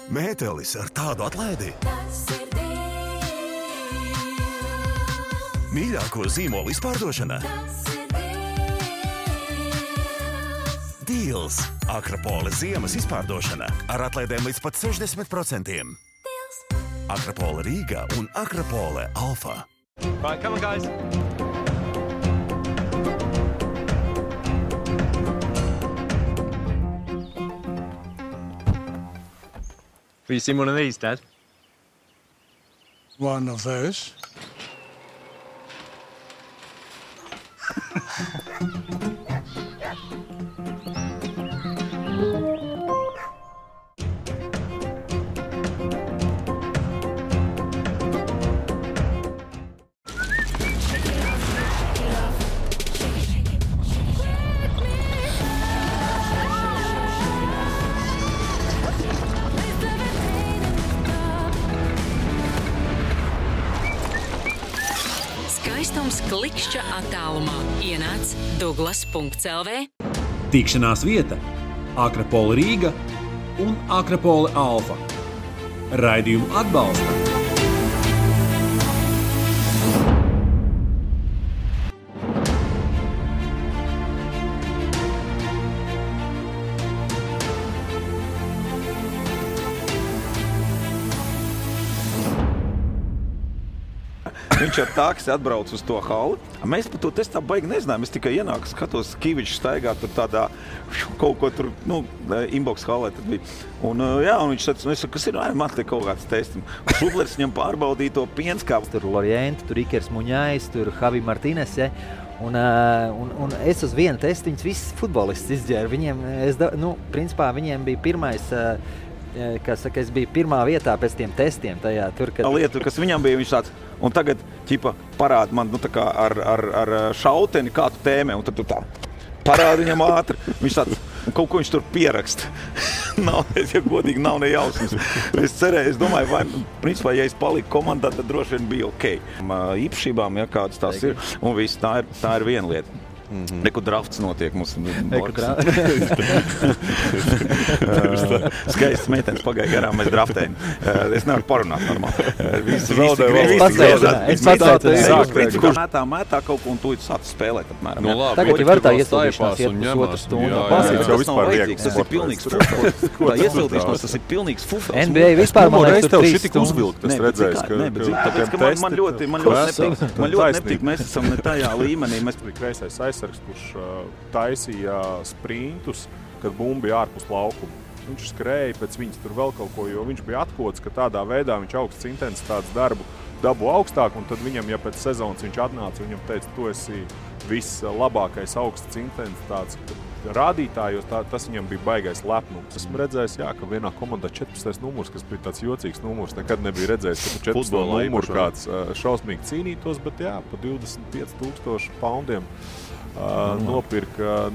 Mētelis ar tādu atlaidi. Mīļāko zīmolu izpārdošana. Deals. Akropole ziemas izpārdošana ar atlaidēm līdz pat 60%. Akropole Rīga un Akropole Alfa. Right, come on, guys. Have you seen one of these, Dad? One of those. Skaistums klikšķa attālumā. Ienāc Douglas.lv. Tikšanās vieta Akropole Rīga un Akropole Alfa. Raidījumu atbalsta Viņš ar taksi atbrauc uz to halli. Mēs par to testu tā baigi nezinājām. Es tikai ienāku, skatos, Kivičs staigā tur tādā kaut ko tur, inbox hallē tad bija. Un viņš teica, es saku, kas ir? Man te kaut kāds tests. Šublers viņam pārbaudīja to pienskāpu. Tur Lorienti, tur Ikers Muņājs, tur Javi Martines, ja? Un es uz vienu testu viņus visus futbolists izģēru. Viņiem, principā viņiem bija pirmais... es biju pirmā vietā pēc tiem testiem tajā tur, kad... Lieta, kas viņam bija, viņš tāds, un tagad, parāda man, tā kā ar šauteni kādu tēmē, un tad tu tā parāda viņam ātri. Viņš tāds, un kaut ko viņš tur pieraksta. Ja godīgi, nav ne jausmas. Es cerēju, es domāju, vai, principā, ja es paliku komandā, tad droši vien bija ok. Īpašībām, ja kādas tās ir, un viss, tā ir viena lieta. Neku drafts notiek mums. Skaists meitenes pagāja garām, mēs draftējam. Es nevaru parunāt normāli. Es pats mētā kaut ko un tu sāc spēlēt apmēram. Tagad jau var tā iesildīšanās iet pusotru stundu. Tas nav vajadzīgs, tas ir pilnīgs fufels. Tā iesildīšanās, tas ir pilnīgs fufels. NBA vispār man liekas tur 3 stundas. Es redzēju, man ļoti nepatīk. Mēs esam ne tajā līmenī. Kreisais aizsargs, kurš taisīja sprintus, kad bumba bija ārpus laukuma. Viņš skrēja pēc viņas tur vēl kaut ko, jo viņš bija atkots, ka tādā veidā viņš augsts intensitātes dabu augstāk, un tad viņam, ja pēc sezonas viņš atnāca, viņam teica, tu esi vislabākais augsts intensitātes rādītājos, tas viņam bija baigais lepnums. Esmu redzējis, ka vienā komandā 14. numurs, kas bija tāds jocīgs numurs, nekad nebija redzējis, ka 14. numurs kāds šausmīgi cīnītos, bet pa 25,000 poundiem nopirka.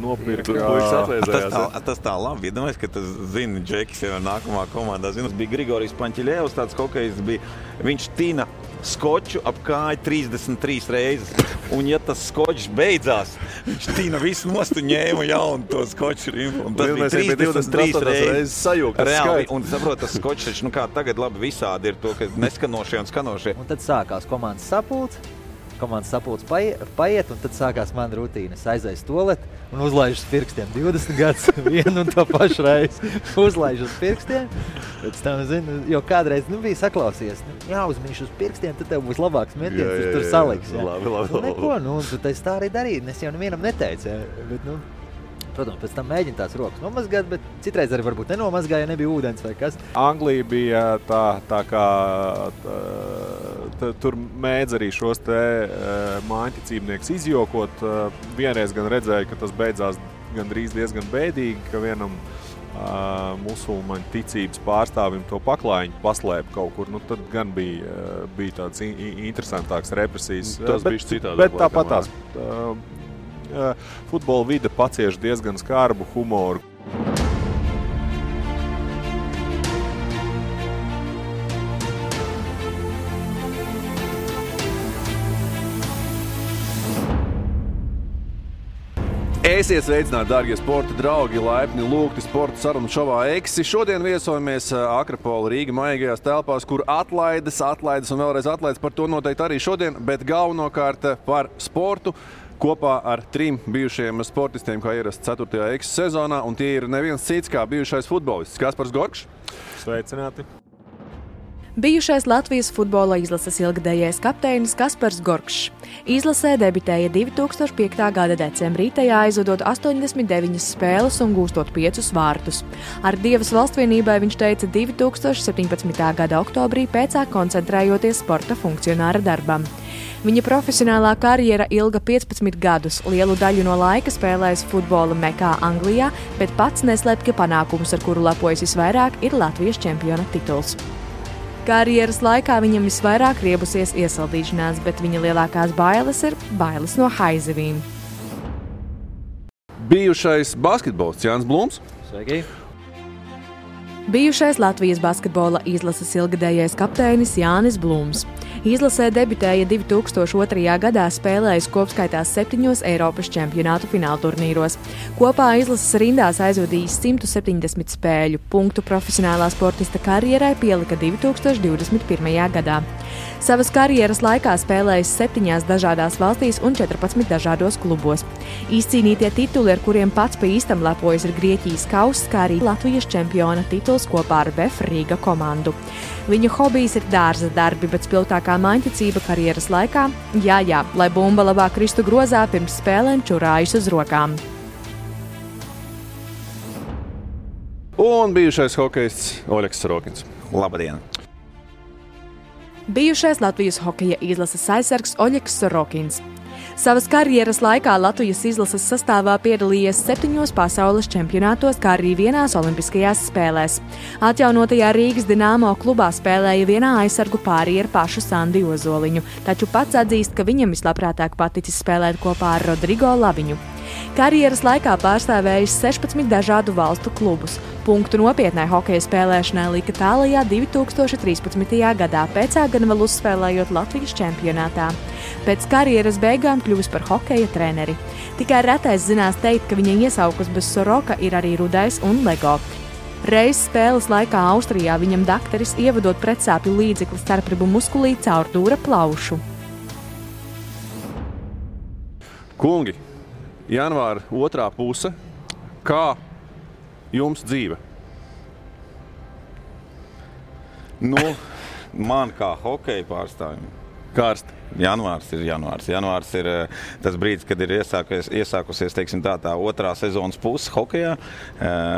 Tas tā labi, iedomājies, ka tas zina Džekis jau nākamā komandā. Tas bija Grigorijs Paņķiļevs, tāds hokejs bija. Viņš tina skoču ap kāju 33 reizes. Un ja tas skočs beidzās, viņš tīna visu nost un ņēma jaunu to skoču rimpu. Un tas bija 33 reizes sajūgt. Reāli, un saprot, tas skočs, kā tagad labi visādi ir to, ka neskanošie un skanošie. Un tad sākās komandas sapulcs paiet, un tad sākās mana rutīna. Es aizēju toaleti un uzlaižu uz pirkstiem 20 gadus vienu un to pašu reizi. Uzlaižu uz pirkstiem, pēc tam, jo kādreiz bija saklausījies, jāuzmīš uz pirkstiem, tad tev būs labāks metiens, tur saliks. Labi. Neko, tu taisi tā arī darīt, es jau nevienam neteicu, bet, protams, pēc tam mēģina tās rokas nomazgāt, bet citreiz arī varbūt nenomazgāja, ja nebija ūdens vai kas. Anglija bija tā kā tur mēdz arī šos te mājiņticībnieks izjokot. Vienreiz gan redzēju, ka tas beidzās gandrīz diezgan bēdīgi, ka vienam musulmaņu ticības pārstāvim to paklājiņu paslēpa kaut kur. Tad gan bija tāds interesantāks represijas. Tas bija citādāk. Bet tāpatās. Futbola vide pacieš diezgan skarbu humoru. Esiet sveicināti, dārgie sporta draugi, laipni lūgti sporta sarunu šovā Eksi. Šodien viesojamies Akrapola Rīga maigajās telpās, kur atlaides un vēlreiz atlaides, par to noteikti arī šodien, bet galvenokārt par sportu kopā ar 3 bijušajiem sportistiem, kā ierasts 4. Eksi sezonā, un tie ir neviens cits kā bijušais futbolists Kaspars Gorkšs. Sveicināti! Bijušais Latvijas futbola izlases ilgadējais kapteinis Kaspars Gorkšs. Izlasē debitēja 2005. gada decembrī, tajā aizvadot 89 spēles un gūstot 5 vārtus. Ar Dievas valstsvienībai viņš teica 2017. gada oktobrī, pēcāk koncentrējoties sporta funkcionāra darbam. Viņa profesionālā karjera ilga 15 gadus, lielu daļu no laika spēlējis futbola Mekā Anglijā, bet pats neslēpj, ka panākums, ar kuru lepojas visvairāk, ir Latvijas čempiona tituls. Karjeras laikā viņam visvairāk riebusies iesaldīšanās, bet viņa lielākās bailes ir bailes no haizivīm. Bijušais basketbolists Jānis Blūms. Sveiki! Bijušais Latvijas basketbola izlases ilgadējais kapteinis Jānis Blūms. Izlasē debitēja 2002. gadā, spēlējis kopskaitā 7 Eiropas čempionātu finālturnīros. Kopā izlases rindās aizvadījis 170 spēļu. Punktu profesionālā sportista karjerai pielika 2021. gadā. Savas karjeras laikā spēlējis 7 dažādās valstīs un 14 dažādos klubos. Izcīnītie tituli, ar kuriem pats pa īstam lepojas, ir Grieķijas kauss, kā arī Latvijas čempiona tituls kopā ar VF Rīga komandu. Viņa hobijs ir dārza darbi, bet spilgtākā maiņticība karjeras laikā - jā, lai bumba labāk kristu grozā, pirms spēlēm čurājas uz rokām. Un bijušais hokejists Oļegs Sorokins. Labdien! Bijušais Latvijas hokeja izlases aizsargs Oļegs Sorokins. Savas karjeras laikā Latvijas izlases sastāvā piedalījies 7 pasaules čempionātos, kā arī 1 olimpiskajās spēlēs. Atjaunotajā Rīgas Dinamo klubā spēlēja vienā aizsargu pārī ar pašu Sandi Ozoliņu, taču pats atzīst, ka viņam vislabprātāk paticis spēlēt kopā ar Rodrigo Laviņu. Karjeras laikā pārstāvējis 16 dažādu valstu klubus. Punktu nopietnai hokeja spēlēšanai lika tālajā 2013. gadā, pēcāk gan vēl uzspēlējot Latvijas čempionātā. Pēc karjeras beigām kļuvis par hokeja treneri. Tikai retais zinās teikt, ka viņa iesaukus bez Soroka ir arī Rudais un Lego. Reiz spēles laikā Austrijā viņam dakteris ievadot pretsāpju līdzekli starpribu muskulī caur dūra plaušu. Kungi, janvāra 2. puse. Kā jums dzīve? Nu, man kā hokeja pārstāvjum. Karsti. Janvārs ir janvārs. Janvārs ir tas brīdis, kad ir iesākusies teiksim, tā 2. sezonas puse hokejā.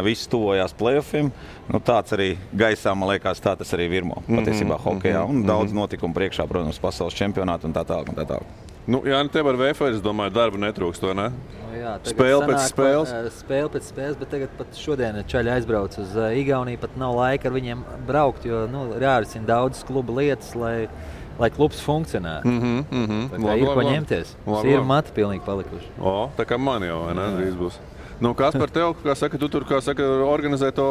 Viss tuvojās play-offiem. Nu, tāds arī gaisā, man liekas, tā tas arī virmo patiesībā hokejā. Un daudz notikumu priekšā, protams, pasaules čempionātu un tā tālāk. Nu, Jāni, tev ar VF, es domāju, darba netrūkst, vai ne? Nu, jā, spēle pēc spēles? Spēle pēc spēles, bet tagad pat šodien čaļi aizbrauc uz Igauniju, pat nav laika ar viņiem braukt, jo jārisina daudzas kluba lietas, lai klubs funkcionētu. Tā kā ir ko ņemties. Ir mati pilnīgi palikuši. Tā kā man jau, vai ne? Drīz būs. Nu, kas par tev, kā saka, tu tur, organizē to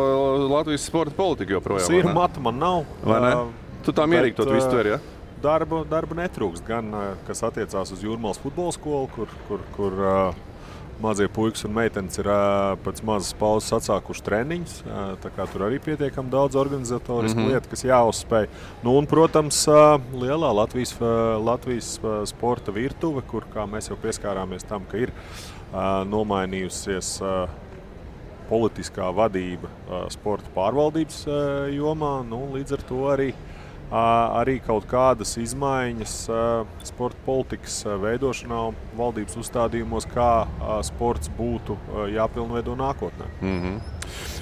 Latvijas sporta politiku joprojām? Ir mati man nav. Vai ne? Tu tā mierīgi to visu tver, ja? Darba netrūkst, gan kas attiecās uz Jūrmālas futbola skolu, kur mazie puikas un meitenes ir pēc mazas pauzes atsākuši treniņus. Tā kā tur arī pietiekami daudz organizatorisku lietu, kas jāuzspēj. Nu, un, protams, lielā Latvijas sporta virtuve, kur, kā mēs jau pieskārāmies tam, ka ir nomainījusies politiskā vadība sporta pārvaldības jomā. Nu, līdz ar to arī kaut kādas izmaiņas sporta politikas veidošanā un valdības uzstādījumos, kā sports būtu jāpilnveido nākotnē.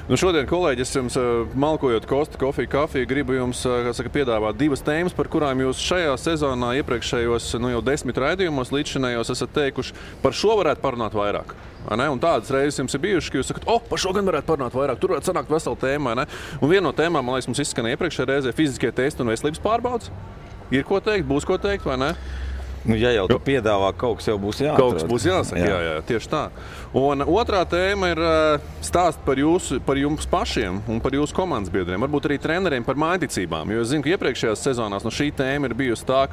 Nu, šodien, kolēģi, es jums malkojot Kosta kafiju, gribu jums piedāvāt 2 tēmas, par kurām jūs šajā sezonā iepriekšējos jau 10 raidījumos līdzšinējos esat teikuši, par šo varētu parunāt vairāk. Un tādas reizes jums ir bijušas, ka jūs sakat, par šo gan varētu parunāt vairāk, tur varētu sanākt vesela tēma. Un viena no tēmām, man liekas, mums izskanēja iepriekšējā reizē fiziskie testi un veselības pārbaudes. Ir ko teikt, būs ko teikt, vai ne? Nu, ja jau tu piedāvā, kaut kas jau būs jāatrod. Kaut kas būs jāsaka, jā, tieši tā. Un otrā tēma ir stāst par jums pašiem un par jūsu komandas biedriem, varbūt arī treneriem par mājticībām. Jo es zinu, ka iepriekšējās sezonās šī tēma ir bijusi tā,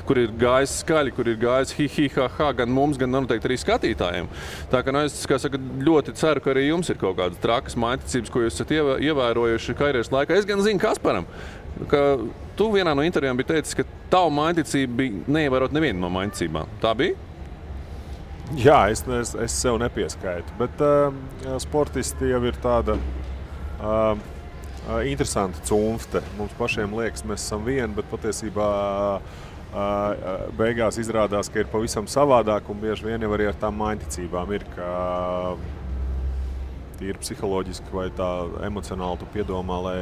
kur ir gājis skaļi, kur ir gājis hi-hi-ha-ha gan mums, gan noteikti arī skatītājiem. Tā kā es ļoti ceru, ka arī jums ir kaut kādas trakas mājticības, ko jūs esat ievērojuši karjeras laikā. Es gan zinu Kasparam, ka tu vienā no intervijām bija teicis, ka tavu mājticību bija neievērot nevienu no mājticībām. Tā bija? Jā, es sev nepieskaitu, bet sportisti jau ir tāda interesanta cunfte. Mums pašiem liekas, mēs esam vieni, bet patiesībā beigās izrādās, ka ir pavisam savādāk un bieži vien jau arī ar tām mājticībām ir, ka tīri psiholoģiski vai tā emocionāli tu piedomā, lai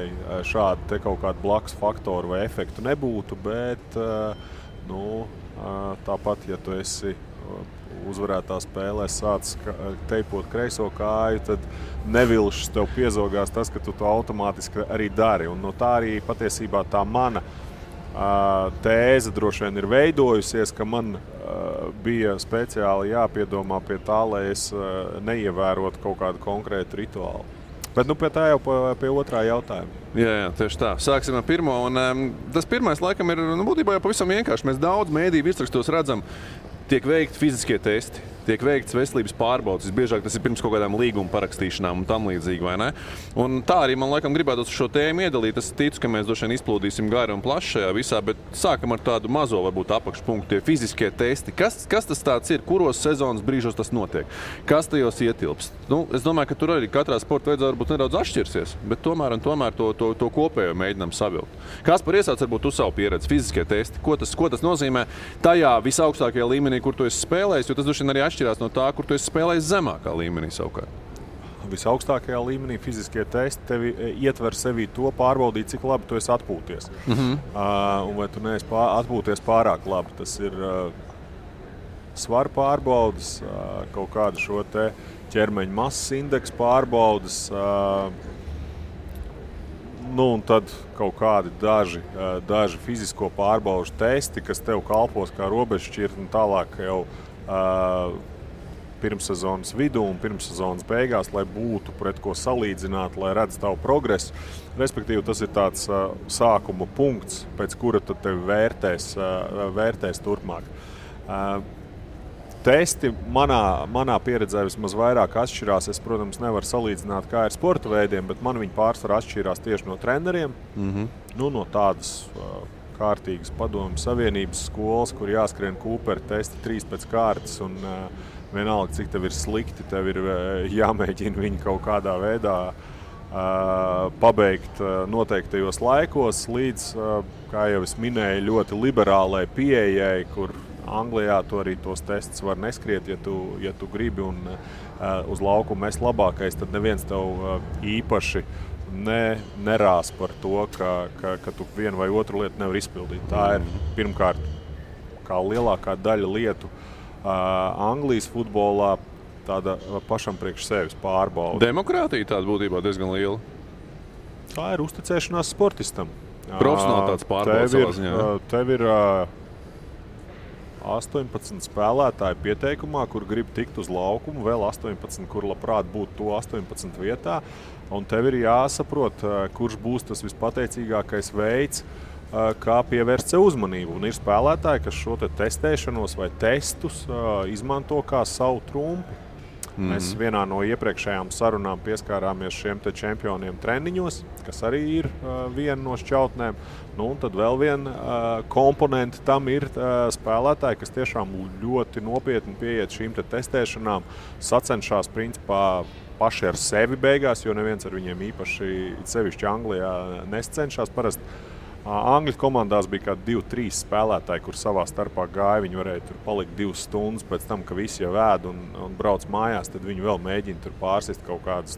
šādi te kaut kādu blakus faktoru vai efektu nebūtu, bet tāpat, ja tu esi uzvarētā spēlē sāc teipot kreiso kāju, tad nevilšas tev piezogās tas, ka tu to automātiski arī dari. Un no tā arī patiesībā tā mana tēze droši vien ir veidojusies, ka man bija speciāli jāpiedomā pie tā, lai es neievērotu kaut kādu konkrētu rituālu. Bet pie tā jau pie otrā jautājuma. Jā, tieši tā. Sāksim ar pirmo. Un, tas pirmais laikam ir būtībā jau pavisam vienkārši. Mēs daudz mēdīju virsrakstos redzam, tiek veikti fiziskie testi, tiek veikts veselības pārbaudes. Visbiežāk tas ir pirms kaut kādām līguma parakstīšanām un tam līdzīgi, vai ne? Un tā arī man laikam gribētos šo tēmu iedalīt. Es ticu, ka mēs droši vien izplūdīsim gari un plaši šajā visā, bet sākam ar tādu mazo varbūt apakšpunktu, tie fiziskie testi. Kas tas tāds ir? Kuros sezonas brīžos tas notiek? Kas tajos ietilpst? Es domāju, ka tur arī katrā sporta veidā varbūt nedaudz atšķirsies, bet tomēr to kopējo mēģinām savilkt. Kaspar, iesāc varbūt tu savu pieredzi, fiziskie testi. Ko tas nozīmē tajā visaugstākajā līmenī, kur tu esi spēlējis, jo tas droši vien arī atšķirās no tā, kur tu esi spēlējis zemākā līmenī savukārt. Visaugstākajā līmenī fiziskie testi tevi ietver sevī to pārbaudīt, cik labi tu esi atpūties. Un vai tu neesi atpūties pārāk labi. Tas ir svaru pārbaudas, kaut kādu šo te ķermeņa masas indeksu pārbaudas, un tad kaut kādi daži fizisko pārbaužu testi, kas tev kalpos kā robežšķirt un tālāk jau pirmssezonas vidū un pirmssezonas beigās, lai būtu pret ko salīdzināt, lai redz tavu progresu. Respektīvi, tas ir tāds sākuma punkts, pēc kura tad tevi vērtēs turpmāk. Testi manā pieredzē vismaz vairāk atšķirās. Es, protams, nevaru salīdzināt, kā ir sporta veidiem, bet man viņi pārsvarā atšķirās tieši no treneriem. No tādas kārtīgas padomju savienības skolas, kur jāskrien Kūpera testi 3 pēc kārtas un vienalga, cik tev ir slikti, tev ir jāmēģina viņu kaut kādā veidā pabeigt noteiktajos laikos līdz, kā jau es minēju, ļoti liberālai pieejai, kur Anglijā to arī tos testus var neskriet, ja tu gribi un uz laukumu mēs labākais, tad neviens tev īpaši nerās par to, ka tu vienu vai otru lietu nevar izpildīt. Tā ir pirmkārt, kā lielākā daļa lietu Anglijas futbolā, tāda pašam priekš sevis pārbauda. Demokrātija tāda būtībā diezgan liela. Tā ir uzticēšanās sportistam. Profesionālitātes pārbauda savā ziņā. Tev ir 18 spēlētāji pieteikumā, kur grib tikt uz laukumu, vēl 18, kur labprāt būtu to 18 vietā. Un tev ir jāsaprot, kurš būs tas vispateicīgākais veids, kā pievērst sev uzmanību. Un ir spēlētāji, kas šo testēšanos vai testus izmanto kā savu trumpi. Mēs vienā no iepriekšējām sarunām pieskārāmies šiem te čempioniem treniņos, kas arī ir viena no šķautnēm. Un tad vēl viena komponente tam ir spēlētāji, kas tiešām ļoti nopietni pieiet šīm te testēšanām, sacenšās principā paši ar sevi beigās, jo neviens ar viņiem īpaši sevišķi Anglijā nescenšās. Parasti Angļu komandās bija kādi 2-3 spēlētāji, kur savā starpā gāja. Viņi varēja tur palikt 2 stundas pēc tam, ka visi jau ēd un brauc mājās, tad viņi vēl mēģina tur pārsist kaut kādas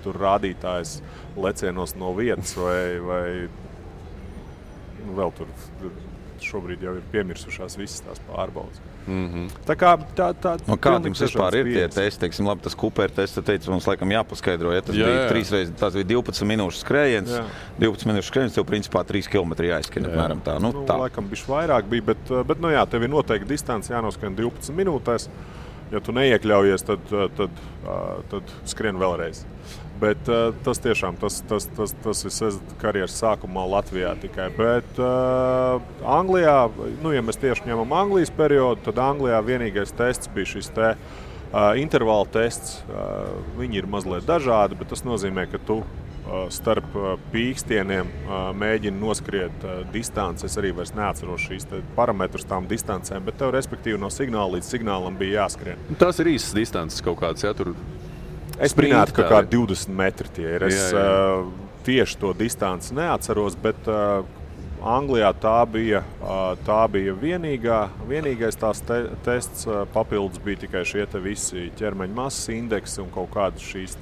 tur rādītājas lecienos no vietas vai vēl tur šobrīd jau ir piemirsušās visas tās pārbaudas. Tā kāda jums vispār ir tie testi? Teiksim, labi, tas Cooper tests, teica, mums laikam jāpaskaidro. Ja tas bija 3 reizes, tas bija 12 minūšu skrējiens. 12 minūšu skrējiens, tev principā 3 km jāizskrien. Apmēram tā. Tā. Laikam bišķi vairāk bija, bet tev ir noteikti distance jānoskrien 12 minūtēs. Ja tu neiekļaujies, tad skrien vēlreiz. Bet tas tiešām, tas ir karjeras sākumā Latvijā tikai. Bet Anglijā, ja mēs tieši ņemam Anglijas periodu, tad Anglijā vienīgais tests bija šis intervāla tests. Viņi ir mazliet dažādi, bet tas nozīmē, ka tu starp pīkstieniem mēģini noskriet distanci. Es arī vairs neatceros šīs parametrus tām distancēm, bet tev respektīvi no signāla līdz signālam bija jāskrien. Tas ir īsas distances kaut kāds, ja tur... Es minētu, ka kā 20 metri tie ir. Es tieši to distanci neatceros, bet Anglijā tā bija vienīgais tās tests. Papildus bija tikai šie visi ķermeņa masas indeksi un kaut kādas šīs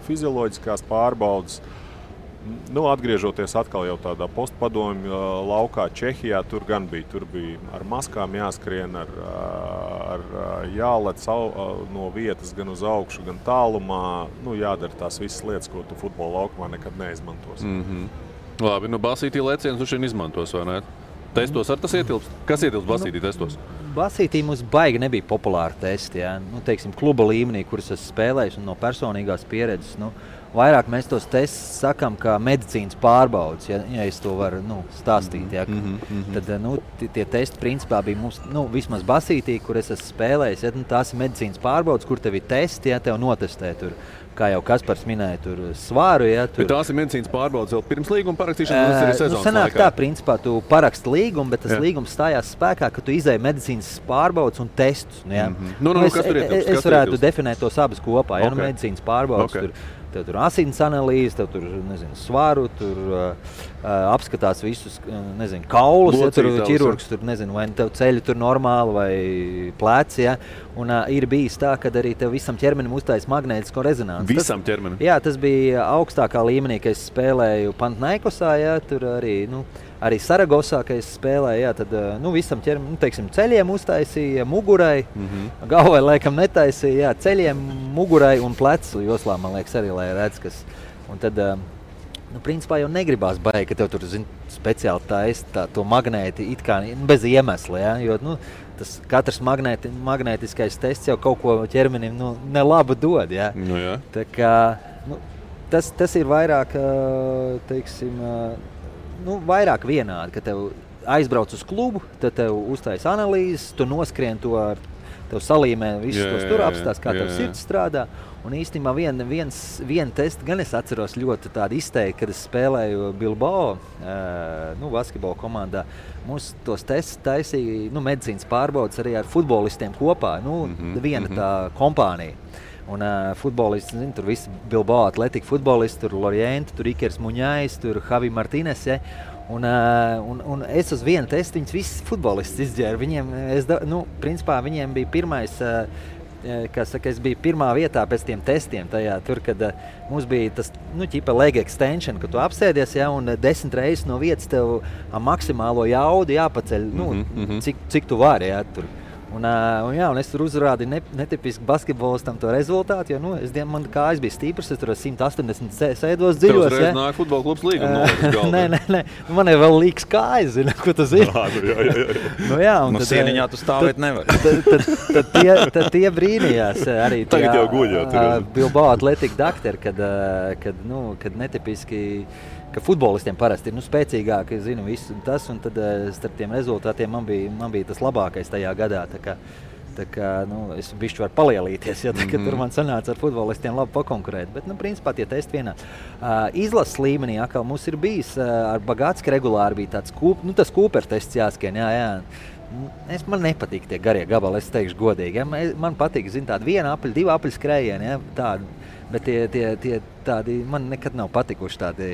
fizioloģiskās pārbaudas. Atgriežoties atkal jau tādā postpadomju laukā Čehijā, tur bija ar maskām jāskrien, ar jālec no vietas gan uz augšu, gan tālumā. Jādara tās visas lietas, ko tu futbola laukumā nekad neizmantos. Labi, basītī lecienus šeit izmantos, vai ne? Testos ar tas ietilpst? Kas ietilpst basītī testos? Basītī mums baigi nebija populāri testi. Ja? Teiksim, kluba līmenī, kuras es spēlēju un no personīgās pieredzes. Vairāk mēs tos testus sakām kā medicīnas pārbaudas, ja es to varu stāstīt. Ja? Tad tie testi principā bija mums, vismaz basītī, kur es esmu spēlējis. Ja? Tās ir medicīnas pārbaudas, kur tev ir testi, ja tev notestē tur. Kā jau Kaspars minēja, tur svāru. Ja, tur... Bet tās ir medicīnas pārbaudas vēl pirms līguma parakstīšanas, tas ir sezonas sanāk laikā. Tā, principā, tu paraksti līgumu, bet tas līgums stājās spēkā, ka tu izēji medicīnas pārbaudas un testus. Ja. Es varētu definēt tos abas kopā. Ja, medicīnas pārbaudas, tev tur asins analīze, tev tur, svāru, tur apskatās visus, kaulus, ja tur ķirurgs, tur, vai tev ceļi tur normāli vai pleci, ja. Un ir bijis tā, ka arī tev visam ķermenim uztais magnētisko rezonanci. Visam ķermenim? Jā, tas bija augstākā līmenī, kad es spēlēju Pantnaikosā, ja, tur arī Saragosā, kad es spēlēju, jā, tad visam ķermenim, ceļiem uztaisīja, mugurai, galvai laikam netaisīja, jā, ceļiem, mugurai un plecu joslā, man liekas, arī, lai redz, kas. Un tad, principā jau negribās baigi, ka tev tur, speciāli taisa to magnēti it kā bez iemesla, ja, jo, tas katrs magnētiskais tests jau kaut ko ķermenim, nelabu dod, ja. Jā. Tā kā, tas ir vairāk, teiksim, vairāk vienādi, ka tev aizbrauc uz klubu, tad tev uztais analīzes, tu noskrien to ar tev salīmē visus tos tur apstās, kā tev sirds strādā. Un īstenībā vienu testu gan es atceros ļoti tādu izteikti, kad es spēlēju Bilbao, basketbola komandā. Mums tos testus taisīja medicīnas pārbaudas arī ar futbolistiem kopā, viena tā kompānija. Un futbolisti, tur visi Bilbao Athletic futbolisti, tur Lorienti, tur Ikers Muņājs, tur Javi Martinez, ja? Un es uz vienu testu viņus visus futbolistus izģēru. Viņiem, principā viņiem bija pirmais, es biju pirmā vietā pēc tiem testiem tajā, tur, kad mums bija tas, ķipa leg extension, ka tu apsēdies, ja, un 10 reizes no vietas tev maksimālo jaudu jāpaceļ, cik tu vari, ja, tur. Un es tur uzrādīju netipisku basketbolistam to rezultātu, jo man kājas bija stīpras, es tur 180 sēdos dziļos. Tev uzreiz nāk futbola klubs līguma Nē. Man ir vēl līks kājas, zini, ko tu zini. Sieniņā tu stāvēt nevar. Tad tie brīnījās arī tagad jau guļ, Bilbao Athletic doktori, kad netipiski, ka futbolistiem parasti ir spēcīgāki, zinu visu tas, un tad starp tiem rezultātiem man bija tas labākais tajā gadā. Tā kā es bišķi varu palielīties, ja tur man sanāca ar futbolistiem labi pakonkurēt. Bet, principā tie testi vienā. Izlases līmenī atkal mums ir bijis, ar Bagātski regulāri bija tāds tas Cooper tests jāskrien, jā. Man nepatīk tie garie gabali, es teikšu godīgi. Ja? Man patīk, tādi 1 apļu, 2 apļu skrējieni, ja? Tādi. Bet tie tādi, man nekad nav patikuši tādi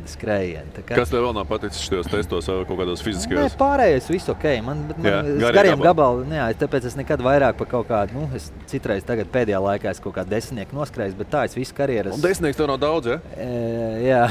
skrējieni. Kas tev vēl nav paticis šajos testos vai kaut kādos fiziskajos? Nē, pārējais viss ok. Man gariem gabali, tāpēc es nekad vairāk par kaut kādu, es citreiz tagad pēdējā laikā es kaut kādu 10 noskrējis, bet tā es visu karjeras. Un 10 tev nav daudz, ja? Jā.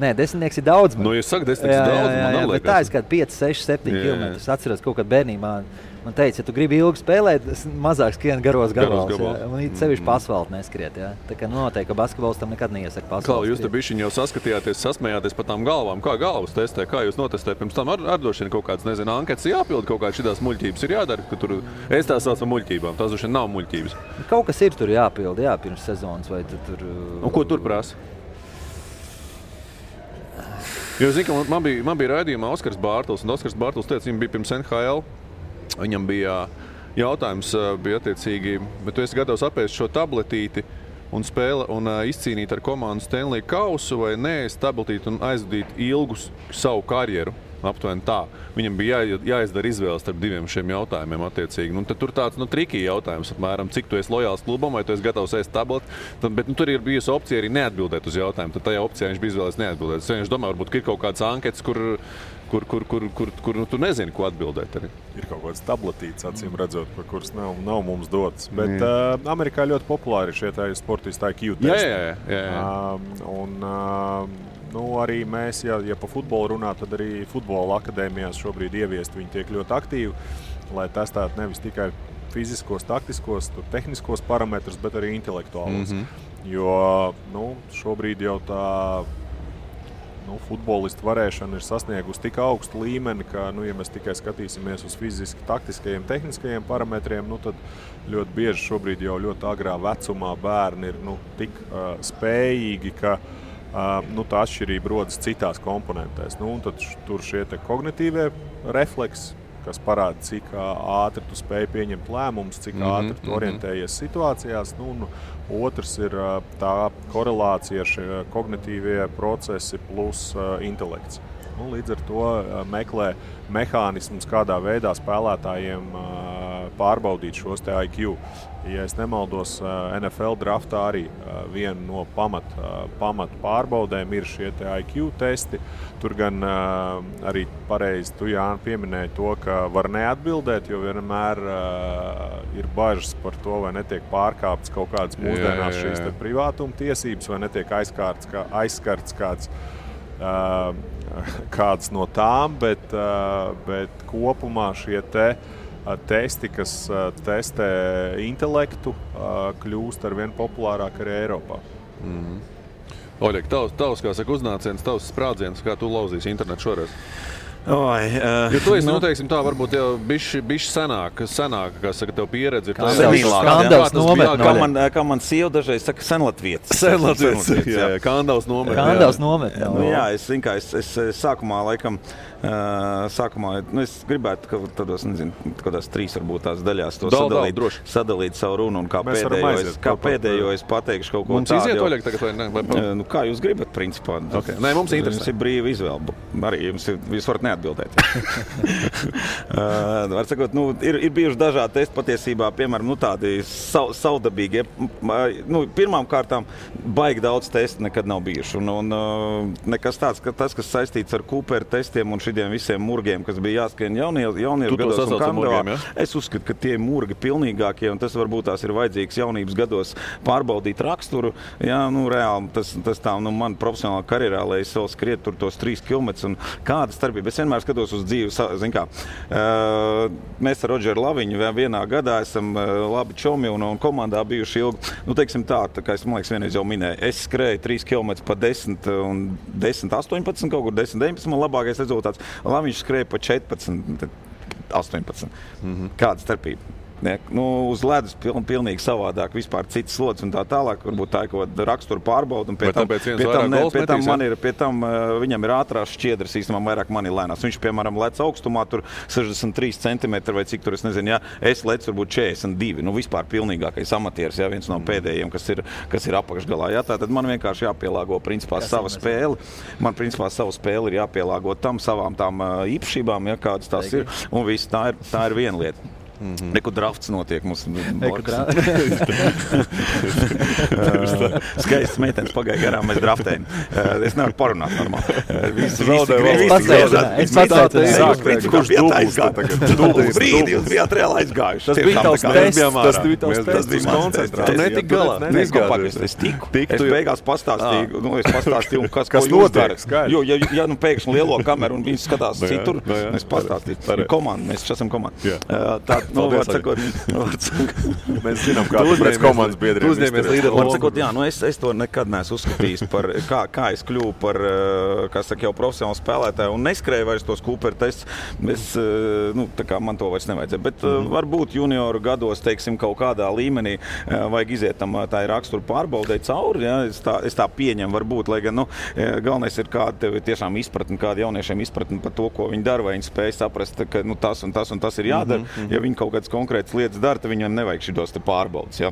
Nē, 10 ir daudz. Nu, jūs sakat, 10 ir daudz, man neliekas. Bet tā ir kāda 5, 6, 7 kilometri. Es atceros kaut kad bērnībā. Man teica, ja tu gribi ilgi spēlēt, mazāk skrien garos gabals. Un sevišķi pa asfaltu neskriet. Jā. Tā kā noteikti, ka basketbols tam nekad neiesaka pa asfaltu. Kā jūs te bišķiņ jau saskatījāties, sasmējāties par tām galvām? Kā galvas testē? Kā jūs notestējat? Pirms tam ar droši vien kaut kāds, nezinu, anketas jāpild, kaut kāds šitās muļķības ir jādara, ka tur es tās saucu muļķībām. Tās droši vien nav muļķības. Kaut kas ir tur jāpild, jā, pirms sezonas vai tur. Un ko tur prasa? Jo, zinu, ka man bija raidījumā Oskars Bārtls, un Oskars Bārtls teica, viņam bija pirms NHL. Viņam bija jautājums, bija attiecīgi, bet tu esi gatavs apēst šo tabletīti un izcīnīt ar komandu Stanley kausu vai nē, tabletīti un aizvadīt ilgu savu karjeru. Aptuveni tā. Viņam bija jāizdara izvēles starp diviem šiem jautājumiem attiecīgi. Nu, tad tur tāds trikī jautājums, apmēram, cik tu esi lojāls klubam vai tu esi gatavs ēst tableti. Bet tur ir bijusi opcija arī neatbildēt uz jautājumu. Tad tajā opcijā viņš bija izvēlējies neatbildēt. Es domāju, varbūt ir kaut kāds anketas, kur tu nezini, ko atbildēt. Arī. Ir kaut kāds tabletīts, acīm redzot, par kuras nav mums dotas. Bet Amerikā ļoti populāri šie sportisti IQ testi. Arī mēs, ja pa futbolu runā, tad arī futbola akadēmijās šobrīd ieviest viņi tiek ļoti aktīvi, lai testētu nevis tikai fiziskos, taktiskos, tehniskos parametrus, bet arī intelektuālos. Jo šobrīd jau tā futbolistu varēšana ir sasniegusi tik augstu līmeni, ka, ja mēs tikai skatīsimies uz fiziski taktiskajiem, tehniskajiem parametriem, tad ļoti bieži šobrīd jau ļoti agrā vecumā bērni ir tik spējīgi, ka tā atšķirība rodas citās komponentēs. Tad tur šie te kognitīvie refleksi, kas parāda, cik ātri tu spēj pieņemt lēmumus, cik ātri tu orientējies situācijās. Otrs ir tā korelācija ar šie kognitīvie procesi plus intelekts. Līdz ar to meklē mehānismus, kādā veidā spēlētājiem pārbaudīt šos te IQ. Ja es nemaldos, NFL draftā arī viena no pamat pārbaudēm ir šie te IQ testi. Tur gan arī pareizi tu, Jāni, pieminēji to, ka var neatbildēt, jo vienmēr ir bažas par to, vai netiek pārkāptas kaut kādas mūsdienās šīs te privātuma tiesības, vai netiek aizskarts kāds no tām, bet kopumā šie testi, kas testē intelektu, kļūst ar vien populārāk arī Eiropā. Oļek, tavs, kā saka, uznāciens, tavs sprādziens, kā tu lauzīsi internetu šoreiz? Jo tu esi, teiksim tā, varbūt jau bišķi senāk, kā saka, tev pieredze ir tā. Kā man sieva dažreiz saka, senlatvietis. Senlatvietis, jā, Kandavs nomet. Kandavs nomet, jā. Es sākumā, laikam, es gribētu, ka tādos, kādās 3 varbūt tās daļās to sadalīt savu runu un kā pēdējo es pateikšu kaut ko tādu. Mums iziet, Oļek, tagad vai ne? Kā jūs gribat, principā. Okay. Nē, mums interesē. Jums ir brīva izvēle. Arī jūs varat neatbildēt. Var sakot, ir bijuši dažādi testi patiesībā, piemēram, tādi savdabīgi. Pirmām kārtām baigi daudz testu nekad nav bijuši. Un nekas tāds, ka tas, kas saistīts ar Cooper testiem un šitiem visiem murgiem, kas bija jāskrien jauniešu gados un Kandavā, es uzskatu, ka tie murgi pilnīgākie, un tas varbūt tās ir vajadzīgs jaunības gados pārbaudīt raksturu. Jā, reāli, tas tā, man profesionālā karjerā, lai es vēl skriet tur tos 3 kilometrus un kāda starpība. Es vienmēr skatos uz dzīvi, mēs ar Rodžeru Laviņu vienā gadā esam labi čomi un komandā bijuši ilgi. Teiksim tā kā es, man liekas, vienreiz jau minēju, es skrēju 3 km pa 10 un 10-18, kaut kur 10-19, man labākais rezultāts. Laviņš skrēja pa 14-18. Kāda starpība? Uz ledus pilnīgi savādāk, vispār cits slods un tā tālāk. Varbūt tā ir kaut kāda rakstura pārbauda. Pie tam viņam ir ātrās šķiedras, īstenībā vairāk man ir lēnās. Viņš, piemēram, lec augstumā tur 63 cm vai cik tur, es nezinu, es lecu varbūt 42. Vispār pilnīgākais amatieris, viens no pēdējiem, kas ir apakšgalā. Tātad man vienkārši jāpielāgo principā sava spēle. Man principā savu spēli ir jāpielāgo tam savām tām īpašībām, kādas tās ir. Un viss, tā ir viena lieta. Nekur drafts notiek mums. Skaists meitenes pagāja garām, mēs draftējam. Es nevaru parunāt normāli. Es pasācināju. Kurš bijāt aizgājuši? Brīdi jūs bijāt reāli aizgājuši. Tas bija tavs tests. Tas bija koncentrēts. Tu netik galā. Es tiku. Es beigās pastāstīju, kas ko jūs darat. Jo, ja nu pēkšņi lielo kameru un viņi skatās citur, es pastāstīju. Komanda, mēs esam komanda. Mēs zinām, kā tu pēc komandas biedriem uzņēmies līderu lomu. Es to nekad neesmu uzskatījis par, kā es kļuvu par, kā saka, jau profesionālu spēlētāju un neskrēju vairs tos Cooper tests. Tā kā man to vairs nevajadzēja. Bet varbūt junioru gados, teiksim, kaut kādā līmenī vajag iziet tam tā rakstura pārbaudē cauri. Ja? Es tā pieņemu varbūt, lai gan, galvenais ir kāda tev tiešām izpratni, kāda jauniešiem izpratni par to, ko viņi dara, vai viņi spēj saprast, ka tas un tas ir jādara. Ja viņi kaut kādas konkrētas lietas dara, tad viņam nevajag šitos te pārbaudas. Ja?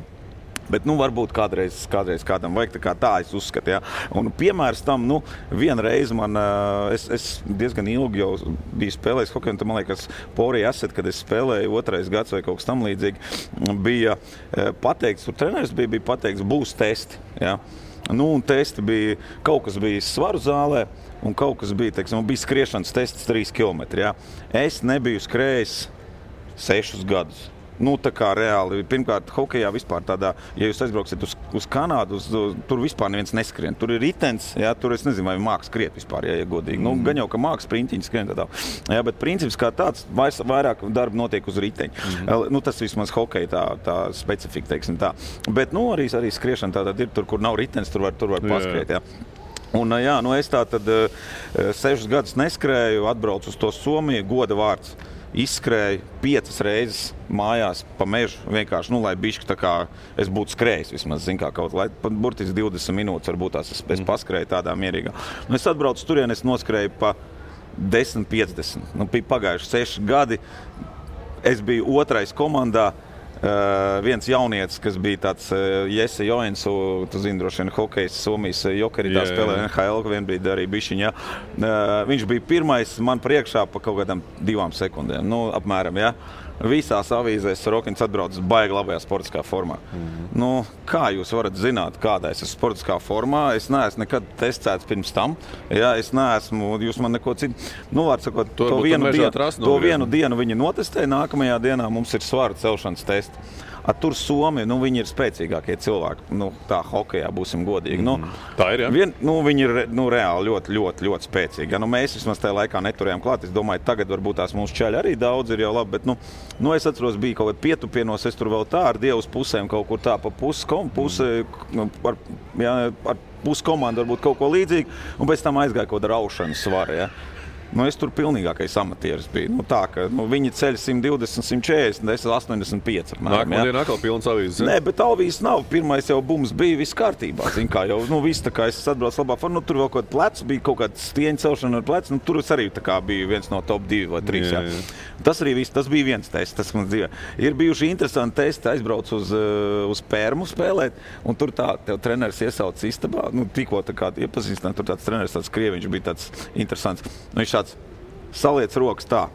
Bet, varbūt kādreiz kādam vajag, tā es uzskatu, ja. Un piemērs tam, vienreiz man, es diezgan ilgi jau biju spēlējis hokeju, un tad, man liekas, Porija Asset, kad es spēlēju 2. gads vai kaut kas tam līdzīgi, bija pateikts, tur treneris bija pateikts, būs testi, ja. Un testi bija, kaut kas bija svaru zālē, un kaut kas bija, teiksim, bija skriešanas tests 3 kilometri, ja. Es nebiju skrējis 6 gadus. Tā kā reāli, pirmkārt, hokejā vispār tādā, ja jūs aizbrauksiet uz Kanādu, tur vispār neviens neskrien. Tur ir ritens, jā, tur es nezinu, vai māks skriet vispār, ja godīgi. Gan jau, ka māks sprintiņi skrien tādā. Jā, bet princips kā tāds, vairāk darba notiek uz riteņa. Tas vismaz hokeja tā specifika, teiksim tā. Bet, arī skriešana tātad ir tur, kur nav ritens, tur var paskriet, jā. Un, es tātad 6 gadus neskrēju, atbraucu uz to Somiju, goda vārds. Izskrēju 5 reizes mājās pa mežu, vienkārši, lai bišķi tā kā es būtu skrējis vismaz, zin kā kaut, lai burtiski 20 minūtes varbūt tās es paskrēju tādā mierīgā. Es atbraucu turien, es noskrēju pa 10-50. Bija pagājuši 6 gadi, es biju 2. komandā, viens jaunietis, kas bija tāds Jesse Joensu, tu zini, droši vien hokejs Somijas Jokeri, tā spēlē NHL, vienbrīd arī bišķiņā. Viņš bija 1. man priekšā pa kaut kādām 2 sekundēm, apmēram, ja. Visās avīzēs Rokins atbrauc baigi labajā sportiskā formā. Kā jūs varat zināt, kādā es esmu sportiskā formā? Es neesmu nekad testēts pirms tam. Ja, es neesmu, jūs man neko citu. Var sakot, to vienu dienu viņi notestēja, nākamajā dienā mums ir svaru celšanas testi. Tur Somi, viņi ir spēcīgākie cilvēki, tā hokejā būsim godīgi. Tā ir, jā? Viņi ir reāli ļoti, ļoti, ļoti spēcīgi. Mēs vismaz tajā laikā neturējām klāt. Es domāju, tagad varbūt tās mūsu čaļi arī daudz ir jau labi, bet es atceros, bija kaut kādā pietupienos, es tur vēl tā ar Dievas pusēm kaut kur tā pa ar puskomandu varbūt kaut ko līdzīgi, un pēc tam aizgāja kaut kāda raušana svara, ja. Es tur pilnīgākais amatieris biju. Tā, ka viņi ceļ 120, 140, es 85. Nākamā diena atkal pilns avīzes. Nē, bet avīzes nav. Pirmais jau bums bija viss kārtībā. Zin kā jau, viss tā kā es atbraucu labā formā. Tur vēl kaut kāds plecs bija, kaut kāds stieņa celšana ar plecu. Tur es arī tā kā biju viens no top 2 vai 3. Jā. Tas arī viss, tas bija viens tests, tas man dzīvē. Ir bijuši interesanti testi, aizbraucu uz Pērmu spēlēt, un tur tev treneris iesauc istabā. Tikko tā kā iepazīstināt, tur tāds treneris, tāds krieviņš bija tāds interesants. Viņš tāds saliec rokas tā,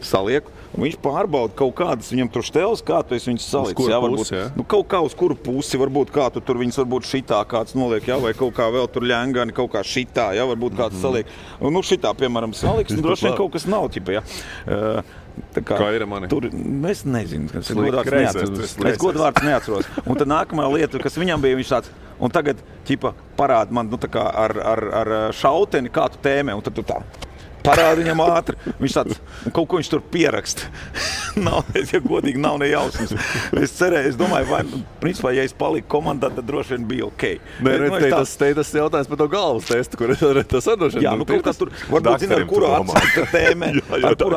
salieku, un viņš pārbauda kaut kādas viņam tur šteles, kā tu esi viņus salicis. Uz kuru pusi, jā? Kaut kā uz kuru pusi, varbūt kā tu tur viņus varbūt šitā kāds noliek, jā, vai kaut kā vēl tur ļengani, kaut kā šitā, jā, varbūt kāds saliek. Šitā, piemēram, saliks, droši vien kaut kas nav, ķipa, jā. Kā ir mani? Tur, es nezinu, es godvārds neatceros. Un tad nākamā lieta, kas viņam bija, viņš tāds, un tagad, ķipa, parāda man, tā kā ar šauteni, kā tu tēmē, un tad tu tā. Parāda viņam ātri. Viņš tāds, un kaut ko viņš tur pieraksta. Ja godīgi nav ne jausmas. Es cerēju, es domāju, principā, ja es paliku komandā, tad droši vien bija ok. Tas jautājums par to galvas testu, kur tas droši vien. Jā, kaut kā tur, varbūt zina, ar kuru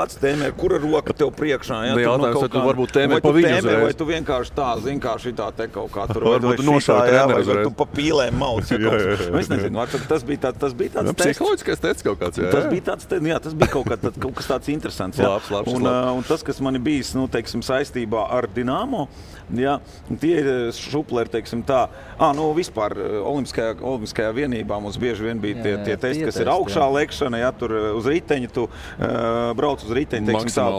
acu tēmē, kura roka tev priekšā. Jā, jautājums, vai tu varbūt tēmē pa viņu uzreiz. Vai tu vienkārši tā, zin kā šitā te kaut kā tur. Varbūt tu nošāvi treneru uzreiz. Vai tu pa pīlēm mauc. Es nezinu, tas bija tāds tests. Psiholoģiskais tests kaut kāds, jā. Tas bija tāds jā, tas bija kaut kas tāds interesants. Jā. Labs. Un tas, kas man ir bijis, teiksim, saistībā ar Dinamo, jā, tie ir šupleri, teiksim tā. Vispār olimpiskajā vienībā mums bieži vien bija tie testi, kas ir augšā lekšana, jā, tur uz riteņa, tu brauc uz riteņa, teiksim tā,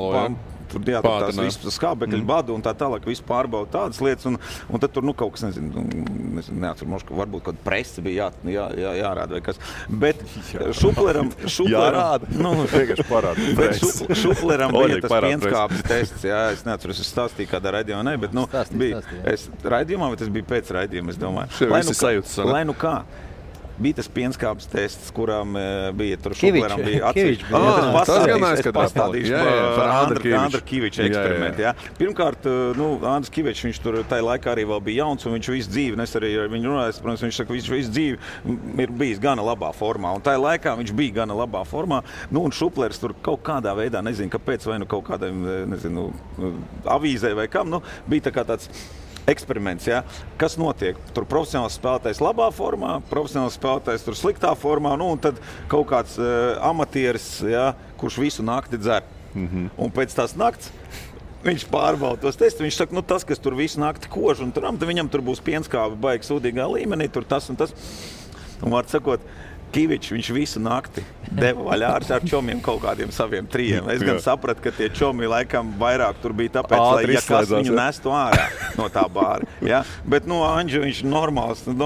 tur tās visas skābekļu badu un tā tālāk, visu pārbauda tādas lietas, un tad tur, kaut kas, neatceru, varbūt kaut presi bija jārāda vai kas. Bet Šupleram... Jārāda? Vienkārši parāda. Bet Šupleram bija tas pienskābes tests, es neatceru, es stāstīju kādā raidījumā, bet, bija, es raidījumā, vai tas bija pēc raidījuma, es domāju. Lai nu kā. Bija tas pienskābes tests, kurām bija tur Šupleram bija atsevišķi. Es pastādīšu par Andra Kiviča eksperimentu. Ja. Pirmkārt, Andris Kivičs, viņš tur tajā laikā arī vēl bija jauns, un viņš visu dzīvi, es arī ar viņu runāju, protams, viņš saka, viņš visu dzīvi ir bijis gana labā formā, un tajā laikā viņš bija gana labā formā, un Šuplers tur kaut kādā veidā, nezinu, kāpēc, vai kaut kādiem, avīzē vai kam, bija tā kā tāds eksperiments, ja? Kas notiek? Tur profesionāls spēlētājs labā formā, profesionāls spēlētājs tur sliktā formā, un tad kaut kāds amatieris, ja, kurš visu nakti dzer. Un pēc tās nakts viņš pārbauda tos testus, viņš saka, tas, kas tur visu nakti kož, un viņam tur būs pienskābi baigi sūdīgā līmenī, tur tas un tas. Un var sakot, Kivičs, viņš visu nakti deva vaļā ar čomiem kaut kādiem saviem trijiem. Es gan sapratu, ka tie čomi laikam vairāk tur bija tāpēc, lai kas viņu nestu ārā no tā bāra. Ja? Bet, Anģi, viņš normāls. Es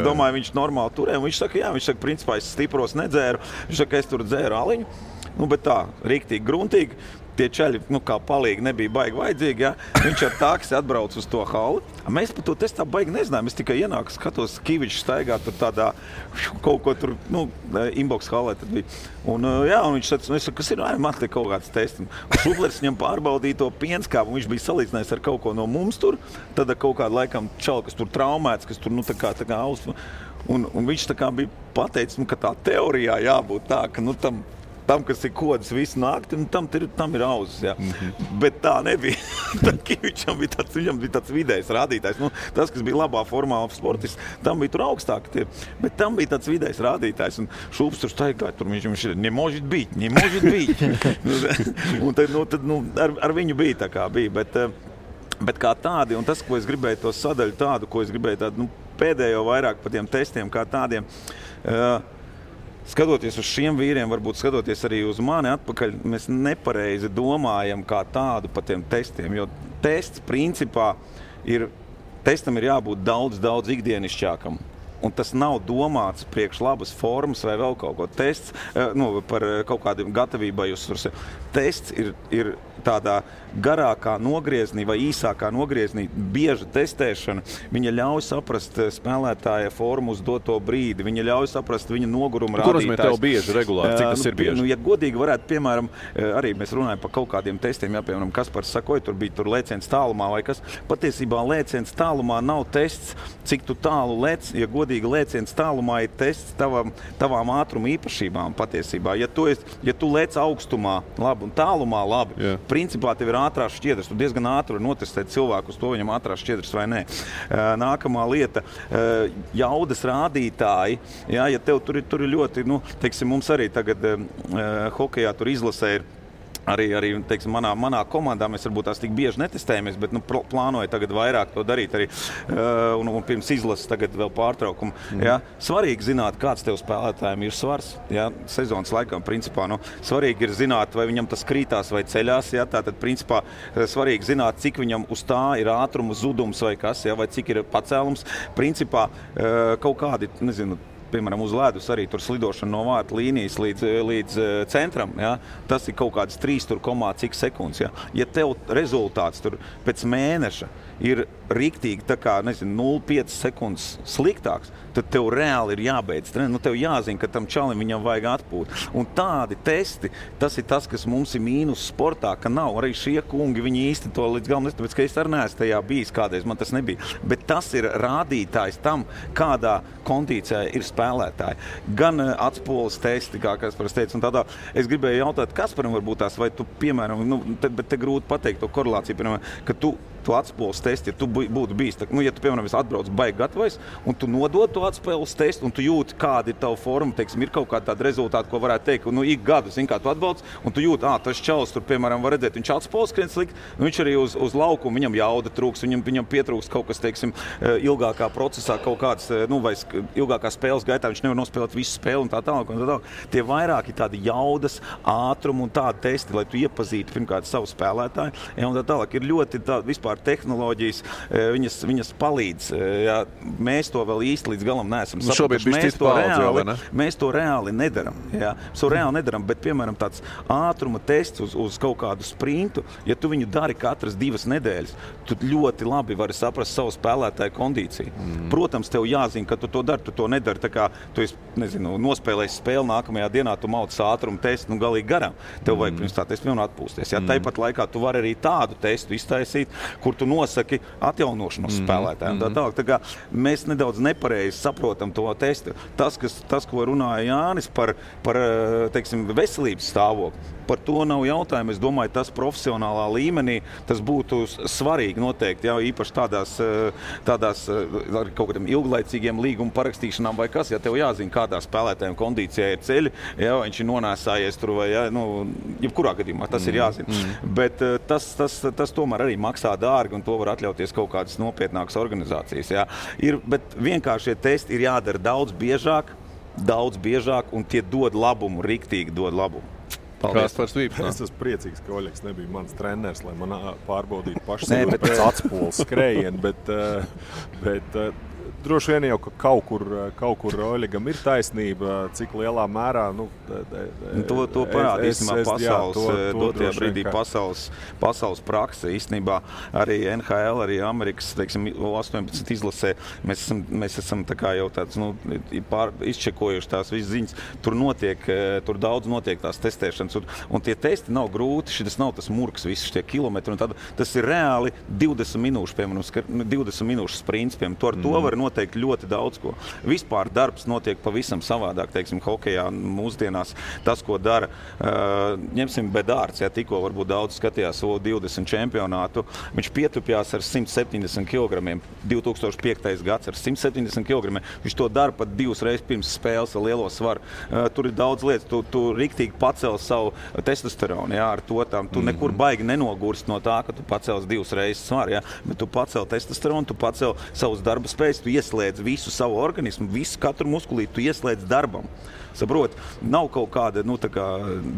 domāju, viņš normāli turē. Viņš saka, principā es stipros nedzēru. Viņš saka, es tur dzēru aliņu. Bet tā, riktīgi, gruntīgi. Tie čaļi, kā palīgi, nebija baigi vajadzīgi, ja? Viņš ar taksi atbrauc uz to halli. Mēs par to testu tā baigi nezinājām. Es tikai ienāku, skatos, Kivičs staigā tur tādā kaut ko tur, inbox hallē tad bija. Un viņš teica, es saku, kas ir, man te kaut kāds tests. Šuplers viņam pārbaudīja to pienskābu, un viņš bija salīdzinājis ar kaut ko no mums tur. Tad kaut kādu laikam čali, kas tur traumēts, kas tur, tā kā aus. Un viņš tā kā bija pateicis, ka tā teorijā jābūt tā, ka, tam, kas ir kodas visu nakti, tam ir auzas, jā. Bet tā nebija. Kivičam viņam bija tāds vidējs rādītājs. Tas, kas bija labā formā sportists, tam bija tur augstāk. Bet tam bija tāds vidējs rādītājs. Un Šups tur staigāja, tur viņš ir, ne может быть. Un tad ar viņu bija tā kā bija. Bet kā tādi, un tas, ko es gribēju to sadaļu tādu, ko es gribēju tādu, pēdējo vairāk par tiem testiem kā tādiem, skatoties uz šiem vīriem, varbūt skatoties arī uz mani atpakaļ, mēs nepareizi domājam kā tādu par tiem testiem, jo tests principā testam ir jābūt daudz ikdienišķākam. Un tas nav domāts priekš labas formas vai vēl kaut ko. Tests par kaut kādiem gatavībai uzsvars. Tests ir tādā garākā nogrieznī vai īsākā nogrieznī bieža testēšana. Viņa ļauj saprast spēlētāja formu uz doto brīdi. Viņa ļauj saprast viņa noguruma rādītājs. Kur nozīmē tev bieži, regulāri? Cik tas ir bieži? Ja godīgi varētu, piemēram, arī mēs runājam par kaut kādiem testiem, piemēram, Kaspars sakoja, tur bija lēciens tālumā vai kas. Patiesībā lēciens tālumā nav tests, cik tu tālu lec, ja godīgi lēciens tālumā ir tests tavām ātruma īpašībām patiesībā. Ja tu lec augstumā labi un tālumā labi, principā tev ir ātrās šķiedras. Tu diezgan ātri var notestēt cilvēku uz to, viņam ātrās šķiedras vai nē. Nākamā lieta, jaudas rādītāji. Ja tev tur ir ļoti, teiksim, mums arī tagad hokejā tur izlasē ir arī teiksim, manā komandā mēs varbūt tās tik bieži netestējamies, bet plānoju tagad vairāk to darīt arī un pirms izlases tagad vēl pārtraukumu. Ja? Svarīgi zināt, kāds tev spēlētājiem ir svars. Ja? Sezonas laikā, principā, svarīgi ir zināt, vai viņam tas krītās vai ceļās. Ja? Tātad, principā, svarīgi zināt, cik viņam uz tā ir ātruma zudums vai kas, ja? Vai cik ir pacēlums. Principā, kaut kādi, piemēram, uz ledus arī tur slidošana no vārta līnijas līdz centram, ja? Tas ir kaut kāds 3,cik sekundes. Ja? Ja tev rezultāts tur pēc mēneša ir riktīgi tā kā, 0,5 sekundes sliktāks, tad tev reāli ir jābeidz. Tev jāzina, ka tam čalim viņam vajag atpūt. Un tādi testi, tas ir tas, kas mums ir mīnus sportā, ka nav. Arī šie kungi, viņi īsti to līdz galam tāpēc, ka es arī neesmu tajā bijis kādreiz, man tas nebija. Bet tas ir rādītājs tam, kādā kondīcijā ir spēlētāji. Gan atspoles testi, kā Kaspars teica, un tādā. Es gribēju jautāt, Kasparam varbūt tās, vai tu, piemēram, bet te grūti pateikt to korelāciju, piemēram, ka tu to atspūles testu, ja tu būtu bijis, ja tu, piemēram, atbrauc baigi gatavais, un tu nodod to atspūles testu, un tu jūti, kāda ir tava forma, teiksim, ir kaut kāda tāda rezultāta, ko varētu teikt, ik gadu, kā tu atbalc, un tu jūti, tas čalis tur, piemēram, var redzēt, viņš atspūles skrien slikt, viņš arī uz laukumu, viņam jauda trūks, viņam pietrūks kaut kas, teiksim, ilgākā procesā, kaut kāds, vai ilgākā spēles gaitā, viņš nevar nospēlēt visu spēli un tā tālāk. Tie vairāki tādi jaudas, ātrumu un tādi testi, lai tu iepazītu pirmkārt savu spēlētāju. Un tā tālāk ir ļoti vispār tehnoloģijas, viņas palīdz. Jā, mēs to vēl īsti līdz galam neesam sapratuši. Mēs to reāli nedaram. Jā. Mēs to reāli nedaram, bet, piemēram, tāds ātruma tests uz kaut kādu sprintu, ja tu viņu dari katras 2 nedēļas, tu ļoti labi vari saprast savu spēlētāju kondīciju. Protams, tev jāzina, ka tu to dari, tu to nedari, tā kā tu esi, nospēlējis spēli nākamajā dienā, tu mauc ātrumu testu, galīgi garām. Tev vajag pirms tā testu atpūsties. Ja? Tāpat laikā tu vari arī tādu testu iztaisīt, kur tu nosaki atjaunošanos spēlētājiem. Tā kā mēs nedaudz nepareizi saprotam to testu. Tas, ko runāja Jānis par teiksim, veselības stāvokli, par to nav jautājumu. Es domāju, tas profesionālā līmenī tas būtu svarīgi noteikti, ja, īpaši tādās ar kaut kādiem ilglaicīgiem līguma parakstīšanām vai kas, ja tev jāzina, kādā spēlētājiem kondīcijā ir ceļi, ja viņš ir nonēsājies tur vai, ja, jebkurā gadījumā tas ir jāzina. Bet tas tomēr arī maksā dārgi un to var atļauties kaut kādas nopietnākas organizācijas. Ja. Bet vienkārši šie testi ir jādara daudz biežāk un tie dod labumu, riktīgi dod labumu. Es esmu priecīgs, ka Oļegs nebija mans treneris, lai man pārbaudītu pašsajūtu pēc atspūles skrējienu, bet droši vien jau, ka kaut kur Oļegam ir taisnība, cik lielā mērā. To parāda īstenībā pasaules prakse. Īstenībā arī NHL, arī Amerikas, teiksim, 18 izlasē, mēs esam tā kā jau tāds, izčekojuši tās visas ziņas. Tur daudz notiek tās testēšanas, un tie testi nav grūti, šis nav tas murks, visi šie kilometri, un tad tas ir reāli 20 minūšu, piemēram, 20 minūšu sprints, piemēram, to var noteikt ļoti daudz ko. Vispār darbs notiek pavisam savādāk, teiksim, hokejā mūsdienās. Tas, ko dara, ņemsim Bedārds, ja tikko varbūt daudz skatījās O20 čempionātu, viņš pietupjās ar 170 kg, 2005. gads ar 170 kg, viņš to dara pat 2 reizes pirms spēles ar lielo svaru. Tur ir daudz lietas, tu riktīgi pacēl savu testosteronu, jā, ar to tam. Tu nekur baigi nenogurst no tā, ka tu pacēls 2 reizes svaru, jā, bet tu pacēl testosteronu, tu pacēl savus darba spējas, tu ieslēdz visu savu organismu, katru muskulīti tu ieslēdz darbam. Saprot, nav kaut kāda,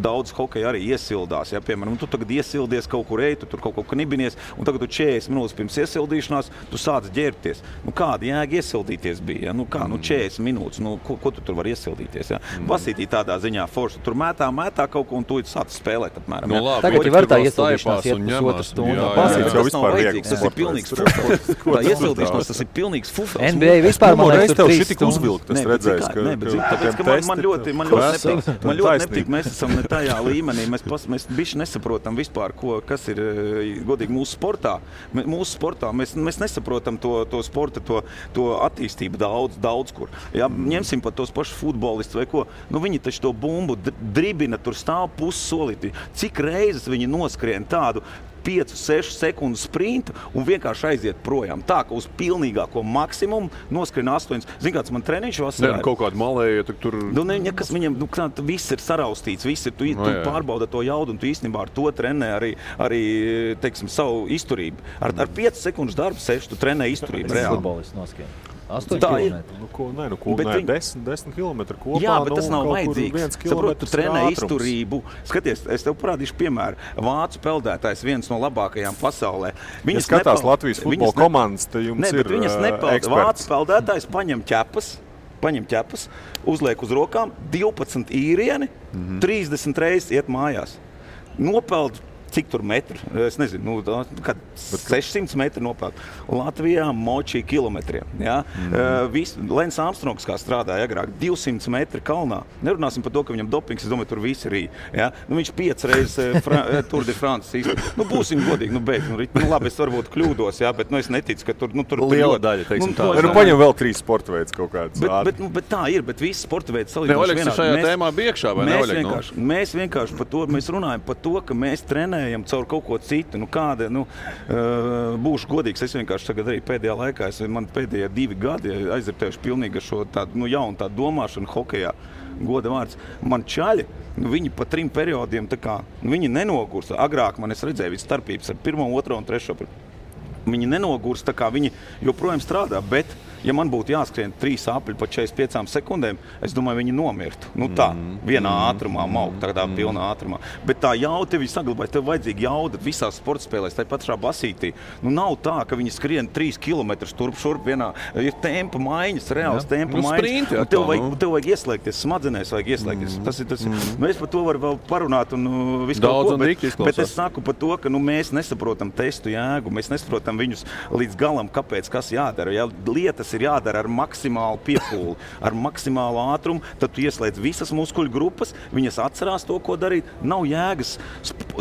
daudz hokeja arī iesildās, ja, piemēram, tu tagad iesildies kaut kur tu tur kaut knibinies, un tagad tu 40 minūtes pirms iesildīšanās, tu sāc ģērbties. Kāda jēga iesildīties bija, ja? 40 minūtes, ko tu tur var iesildīties, ja? Basītī tādā ziņā forši, tur mētā kaut ko, un tu sāc spēlēt apmēram. Ja? Tagad var tā iesildīšanās iet pusotru stundu. Basīts jau vispār vajadzīgs, tas ir pilnīgs fufels. Tā iesildīšanās, tas ir pilnīgs fufels. NBA vispār man liekas tur 3 stundas. Uzvilkt, es redzēju, Man ļoti nepatīk, mēs esam ne tajā līmenī, mēs bišķi nesaprotam vispār, kas ir godīgi mūsu sportā. Mēs nesaprotam to sporta, to attīstību daudz kur. Ja, ņemsim pat tos pašus futbolistus vai ko, viņi taču to bumbu dribina, tur stāv pussolīti. Cik reizes viņi noskrien tādu 5-6 sekundu sprintu un vienkārši aiziet projām. Tā, ka uz pilnīgāko maksimumu noskrien 8. Zini, kāds man treniņš vasarā? Kaut kādu malēju, tur... Nekas viņam, viss ir saraustīts, tu pārbauda to jaudu, un tu īstenībā ar to trenē arī teiksim, savu izturību. Ar 5 sekundu darbu sēž, tu trenē izturību reāli. Futbolists noskrien. 8 km. 10 km kopā. Jā, bet tas nav vajadzīgs. Saprot, tu trenē izturību. Skaties, es tev parādīšu piemēru. Vācu peldētājs viens no labākajām pasaulē. Ja skatās Latvijas futbola komandas, te jums ir eksperts. Vācu peldētājs paņem ķepas, uzliek uz rokām 12 īrieni, 30 reizes iet mājās. Nopeld cik tur metru, es nezinu, 600 metru nopeld. Latvijā močī kilometriem. Ja? Lens Armstrongs, kā strādāja agrāk, 200 metri kalnā. Nerunāsim par to, ka viņam dopings, es domāju, tur visi rī. Ja? Viņš 5 reizes Tour de France īsti. Būsim godīgi, labi, es varbūt kļūdos, ja? Bet es neticu, ka tur liela daļa, teiksim tā. Paņem vēl 3 sporta veids kaut kāds. Bet tā ir, bet visi sporta veidi salīdzinoši vienādi. Šajā tēmā bija iekšā, vai ne, Oļeg? Mēs vienkārši par to, mēs runājam par to, ka mēs trenējam neejam caur kaut ko citu. Kāda, būšu godīgs, es vienkārši tagad arī pēdējā laikā, man pēdējie 2 gadi aizritējuši pilnīgi ar šo tādu, jaunu tādu domāšanu hokejā. Goda vārds. Man čaļi, viņi pa 3 periodiem, viņi nenogursta. Agrāk man es redzēju visu starpības ar 1, 2 un 3. Viņi nenogursta, viņi joprojām strādā, bet ja man būtu jāskrien 3 apļi pa 45 sekundēm, es domāju, viņi nomirtu. Vienā ātrumā, tādā pilnā ātrumā. Bet tā jauda tev saglabājas, tev vajadzīga jauda visās sporta spēlēs, tā pašā basītī. Nav tā, ka viņi skrien 3 kilometrus turp šurp vienā, ir tempa maiņas, reāls tempa maiņas. Tev vajag ieslēgties, smadzenēs vajag ieslēgties. Tas. Mēs par to varam vēl parunāt un visu kaut ko, bet es saku par to, ka mēs nesaprotam testu jēgu, mēs nesaprotam viņus līdz galam, kāpēc, kas jādara. Ja lietas ir jādara ar maksimālu piepūli, ar maksimālu ātrumu, tad tu ieslēdz visas muskuļu grupas, viņas atcerās to, ko darīt. Nav jēgas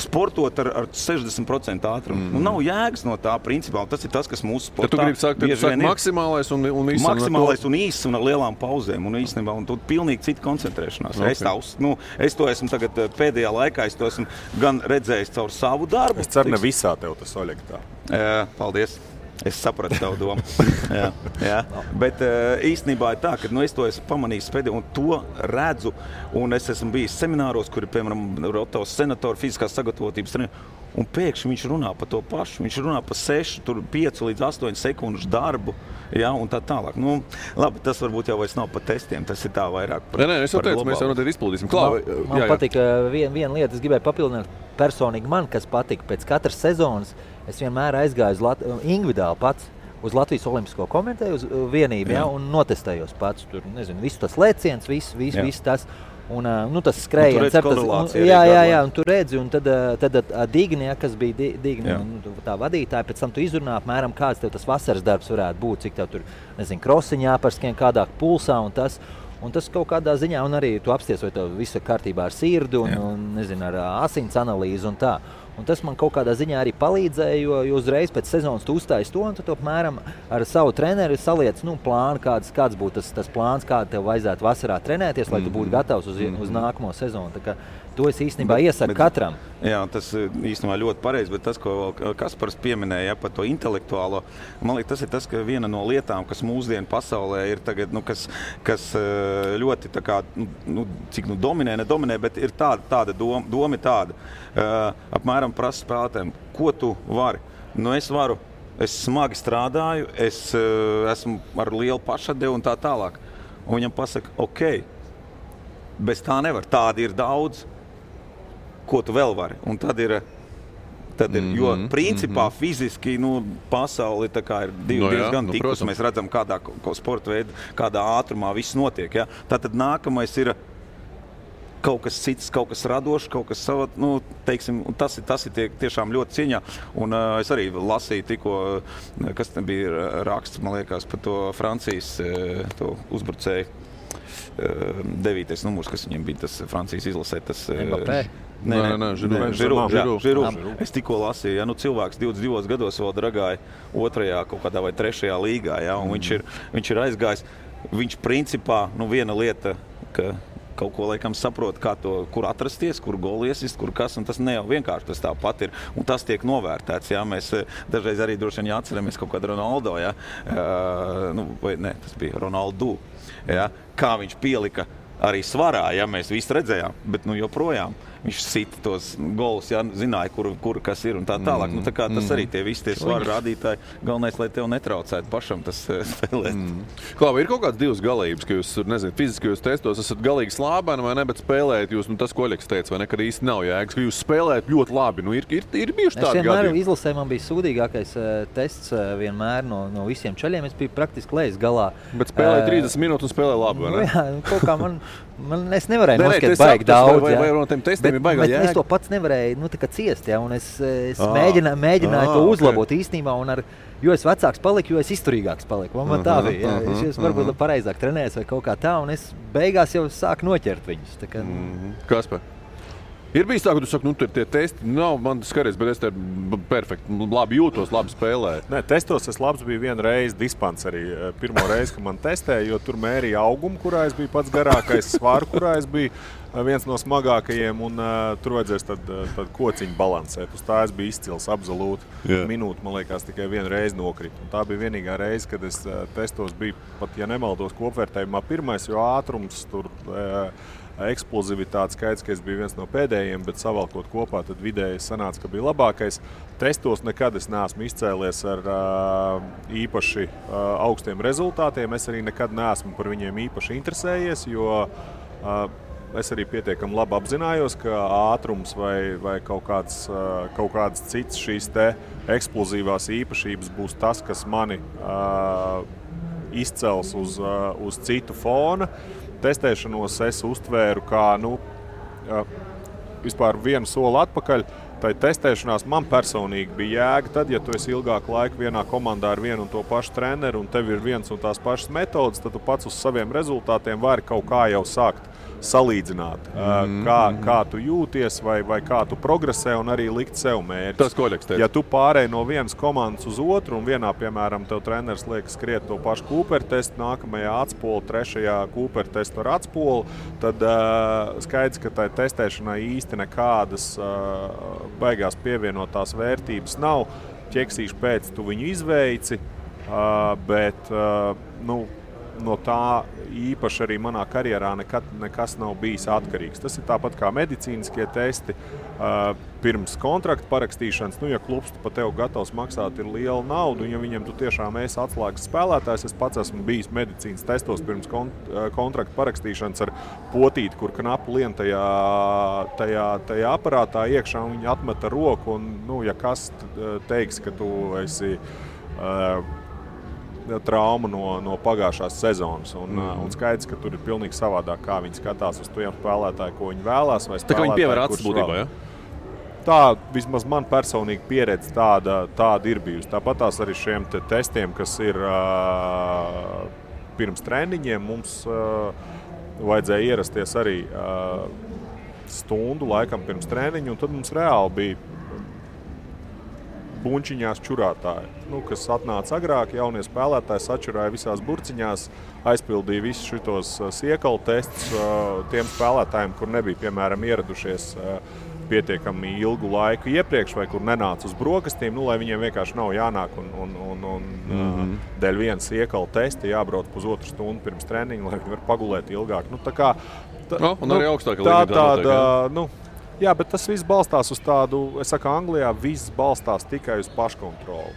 sportot ar 60% ātrumu. Nav jēgas no tā principā, un tas ir tas, kas mūsu sportā bieži vien ir. Maksimālais un īsts. Maksimālais un īsts un ar lielām pauzēm, un īstenībā, un tu pilnīgi cita koncentrēšanās. Okay. Es to esmu tagad pēdējā laikā, es to esmu gan redzējis caur savu darbu. Es ceru, ne visā tev tas Oļeg tā. Paldies. Es sapratu tavu domu. jā. Bet īstenībā ir tā, ka es to esmu pamanījis pēdējā un to redzu. Un es esmu bijis semināros, kuri, piemēram, Rotovs senatori, fiziskās sagatavotības treneri. Un pēkšņi viņš runā par to pašu. Viņš runā par 5 līdz 8 sekundžu darbu. Jā, un tā tālāk. Labi, tas varbūt jau vairs nav par testiem. Tas ir tā vairāk par globālu. Es jau teicu, mēs jau noteikti izpildīsim. Man patika viena lieta, es gribēju papildināt personīgi man, kas patika pēc katras sezonas. Es vienmēr aizgāju individuāli pats uz Latvijas Olimpisko komiteju, uz vienību, un notestējos pats. Tur, visu tas lēciens, viss tas. Un, tas skrējiens. Un tu redzi, un tad Digni, kas bija Digni, tā vadītāja, pēc tam tu izrunā apmēram, kāds tev tas vasaras darbs varētu būt, cik tev tur, krosiņā pārskrien kādā pulsā un tas. Un tas kaut kādā ziņā, un arī tu apsties, vai tev viss ir kārtībā ar sirdi un ar asins analīzi un tā. Un tas man kaut kādā ziņā arī palīdzēja, jo uzreiz pēc sezonas tu uzstājies to, un tu apmēram ar savu treneri saliec plānu, kāds būtu tas plāns, kādu tev vajadzētu vasarā trenēties, lai tu būtu gatavs uz nākamo sezonu. Tā kā to es īstenībā iesaku katram. Jā, tas īstenībā ļoti pareizi, bet tas, ko Kaspars pieminēja par to intelektuālo, man liekas, tas ir tas, ka viena no lietām, kas mūsdienu pasaulē ir tagad, kas ļoti tā kā, cik nedominē, bet ir tāda doma ir tāda. Apmēram prasa spēlētājiem, ko tu vari. Es smagi strādāju, es esmu ar lielu pašatdevu un tā tālāk. Un viņam pasaka, ok, bez tā nevar, tādi ir daudz, ko tu vēl vari. Un tad ir jo principā fiziski pasauli tā kā ir diezgan tikus. Mēs redzam, kādā sporta veidā, kādā ātrumā viss notiek. Ja? Tātad nākamais ir kaut kas cits, kaut kas radošs, kaut kas savā, teiksim, tas ir tiešām ļoti cieņā. Un es arī lasīju tikko, kas bija raksts, man liekas, par to Francijas to uzbrucēju 9. numurs, kas viņiem bija tas Francijas izlasē. Tas Mbappé? Žiru. Es tikko lasīju, cilvēks 22 gados vēl dragāja 2. kaut kādā vai 3. līgā, un viņš ir aizgājis. Viņš principā, viena lieta, ka kaut ko laikam saprot, kur atrasties, kur goli iesist, kur kas, un tas ne jau vienkārši tas tāpat ir, un tas tiek novērtēts, Mēs dažreiz arī droši vien jāatceramies kaut kādu Ronaldo, tas bija Ronaldo, kā viņš pielika arī svarā, mēs visi redzējām, bet joprojām viņš sita tos golus, zināja, kur kas ir un tā tālāk. Tā kā tas arī tie visi tie svaru rādītāji, galvenais, lai tev netraucētu pašam tas spēlēt. Klāva, ir kaut kāds divas galības, ka jūs, fiziskajos testos esat galīgi slābēni vai ne, bet spēlējat jūs, tas, ko Oļegs teica, vai ne, kad īsti nav jēgas, ka jūs spēlējat ļoti labi. Ir bijuši tādi gadi. Es vienmēr izlasē man bija sūdīgākais tests vienmēr no visiem čaļiem. Es biju praktiski lejas galā. Bet spēlēja 30 minūtes un spēlēja labi, vai ne? Jā, kaut kā es nevarēju noskatīt baigi daudz. Vai no tiem testiem ir baigā jēga? Es to pats nevarēju ciest, un es mēģināju to uzlabot īstenībā, un jo es vecāks paliku, jo es izturīgāks paliku. Man tā bija. Es varbūt pareizāk trenējos vai kaut kā tā, un es beigās jau sāku noķert viņus. Kaspar? Ir bijis tā, ka tu saki, tie testi nav man skaries, bet es te perfekti, labi jūtos, labi spēlēju. Nē, testos es labs biju vienu reizi dispanserī. Pirmo reizi, kad man testēja, jo tur mērīja augumu, kurā es biju pats garākais, svaru, kurā es biju. viens no smagākajiem, un tur vajadzēs tad kociņu balansēt. Uz tā es biju izcils absolūti. Minūti, man liekas, tikai vienu reizi nokrita. Un tā bija vienīgā reize, kad es testos biju, pat ja nemaldos kopvērtējumā pirmais, jo ātrums tur eksplozivitāte skaits, ka es biju viens no pēdējiem, bet savalkot kopā, tad vidēji sanāca, ka bija labākais. Testos nekad es neesmu izcēlies ar īpaši augstiem rezultātiem. Es arī nekad neesmu par viņiem īpaši interesējies, jo es arī pietiekami labi apzinājos, ka ātrums vai kaut kāds cits šīs te eksplozīvās īpašības būs tas, kas mani izcels uz citu fona. Testēšanos es uztvēru kā vispār vienu soli atpakaļ. Tai testēšanās man personīgi bija jēga tad, ja tu esi ilgāku laiku vienā komandā ar vienu un to pašu treneru un tev ir viens un tās pašas metodas, tad tu pats uz saviem rezultātiem vari kaut kā jau sākt salīdzināt, kā tu jūties vai kā tu progresē un arī likt sev mērķus. Tas koļeks teica. Ja tu pārēji no vienas komandas uz otru un vienā, piemēram, tev treneris liek skriet to pašu Cooper testu, nākamajā atspoli, trešajā Cooper testu ar atspoli, tad skaidrs, ka tai testēšanai īsti nekādas baigās pievienotās vērtības nav. Ķeksīšu pēc tu viņu izveici, bet no tā īpaši arī manā karjerā nekas nav bijis atkarīgs. Tas ir tāpat kā medicīniskie testi pirms kontrakta parakstīšanas. Ja klubs pa tev gatavs maksāt ir liela nauda, un ja viņam tu tiešām esi atslēgas spēlētājs, es pats esmu bijis medicīnas testos pirms kontrakta parakstīšanas ar potīti, kur knapu lien tajā aparātā iekšā, un viņi atmeta roku, un ja kas teiks, ka tu esi traumu no pagājušās sezonas. Un skaidrs, ka tur ir pilnīgi savādāk, kā viņi skatās uz tiem spēlētāju, ko viņi vēlās. Vai tā kā viņi pievēr acis būtībā, ja? Tā, vismaz man personīgi pieredze tāda ir bijusi. Tāpat tās arī šiem testiem, kas ir pirms treniņiem, mums vajadzēja ierasties arī stundu laikam pirms treniņu, un tad mums reāli bija buņčiņās čurātāji, kas atnāca agrāk, jaunie spēlētāji sačurāja visās burciņās, aizpildīja visus šitos siekalu testus tiem spēlētājiem, kur nebija, piemēram, ieradušies pietiekami ilgu laiku iepriekš vai kur nenāca uz brokastīm, lai viņiem vienkārši nav jānāk un dēļ viena siekalu testa jābrauc pusotru stundu pirms treniņa, lai viņi var pagulēt ilgāk. Un arī augstāka līmenī. Jā, bet tas viss balstās uz tādu, es saku, Anglijā viss balstās tikai uz paškontroli.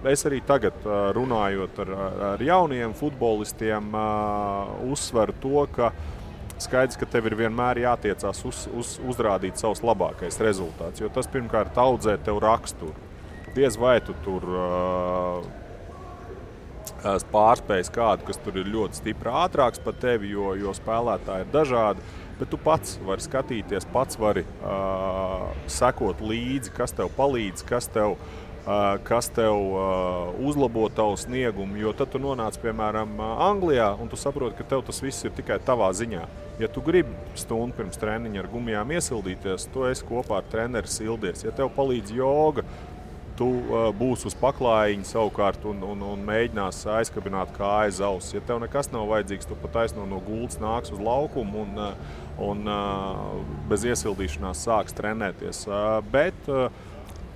Es arī tagad, runājot ar jauniem futbolistiem, uzsveru to, ka skaidrs, ka tev ir vienmēr jātiecās uzrādīt savus labākais rezultāts, jo tas pirmkārt audzē tev raksturu. Diez vai tu tur pārspējas kādu, kas tur ir ļoti stipri ātrāks par tevi, jo spēlētāji ir dažādi. Bet tu pats vari skatīties, pats vari sekot līdzi, kas tev palīdz, kas tev uzlabo tavu sniegumu. Jo tad tu nonāc, piemēram, Anglijā, un tu saproti, ka tev tas viss ir tikai tavā ziņā. Ja tu gribi stundu pirms treniņa ar gumijām iesildīties, tu esi kopā ar treneri sildies. Ja tev palīdz joga, tu būsi uz paklājiņa savukārt un mēģinās aizkabināt kāju aiz auss. Ja tev nekas nav vajadzīgs, tu pat taisno no gultas nāks uz laukumu un bez iesildīšanās sāks trenēties. Bet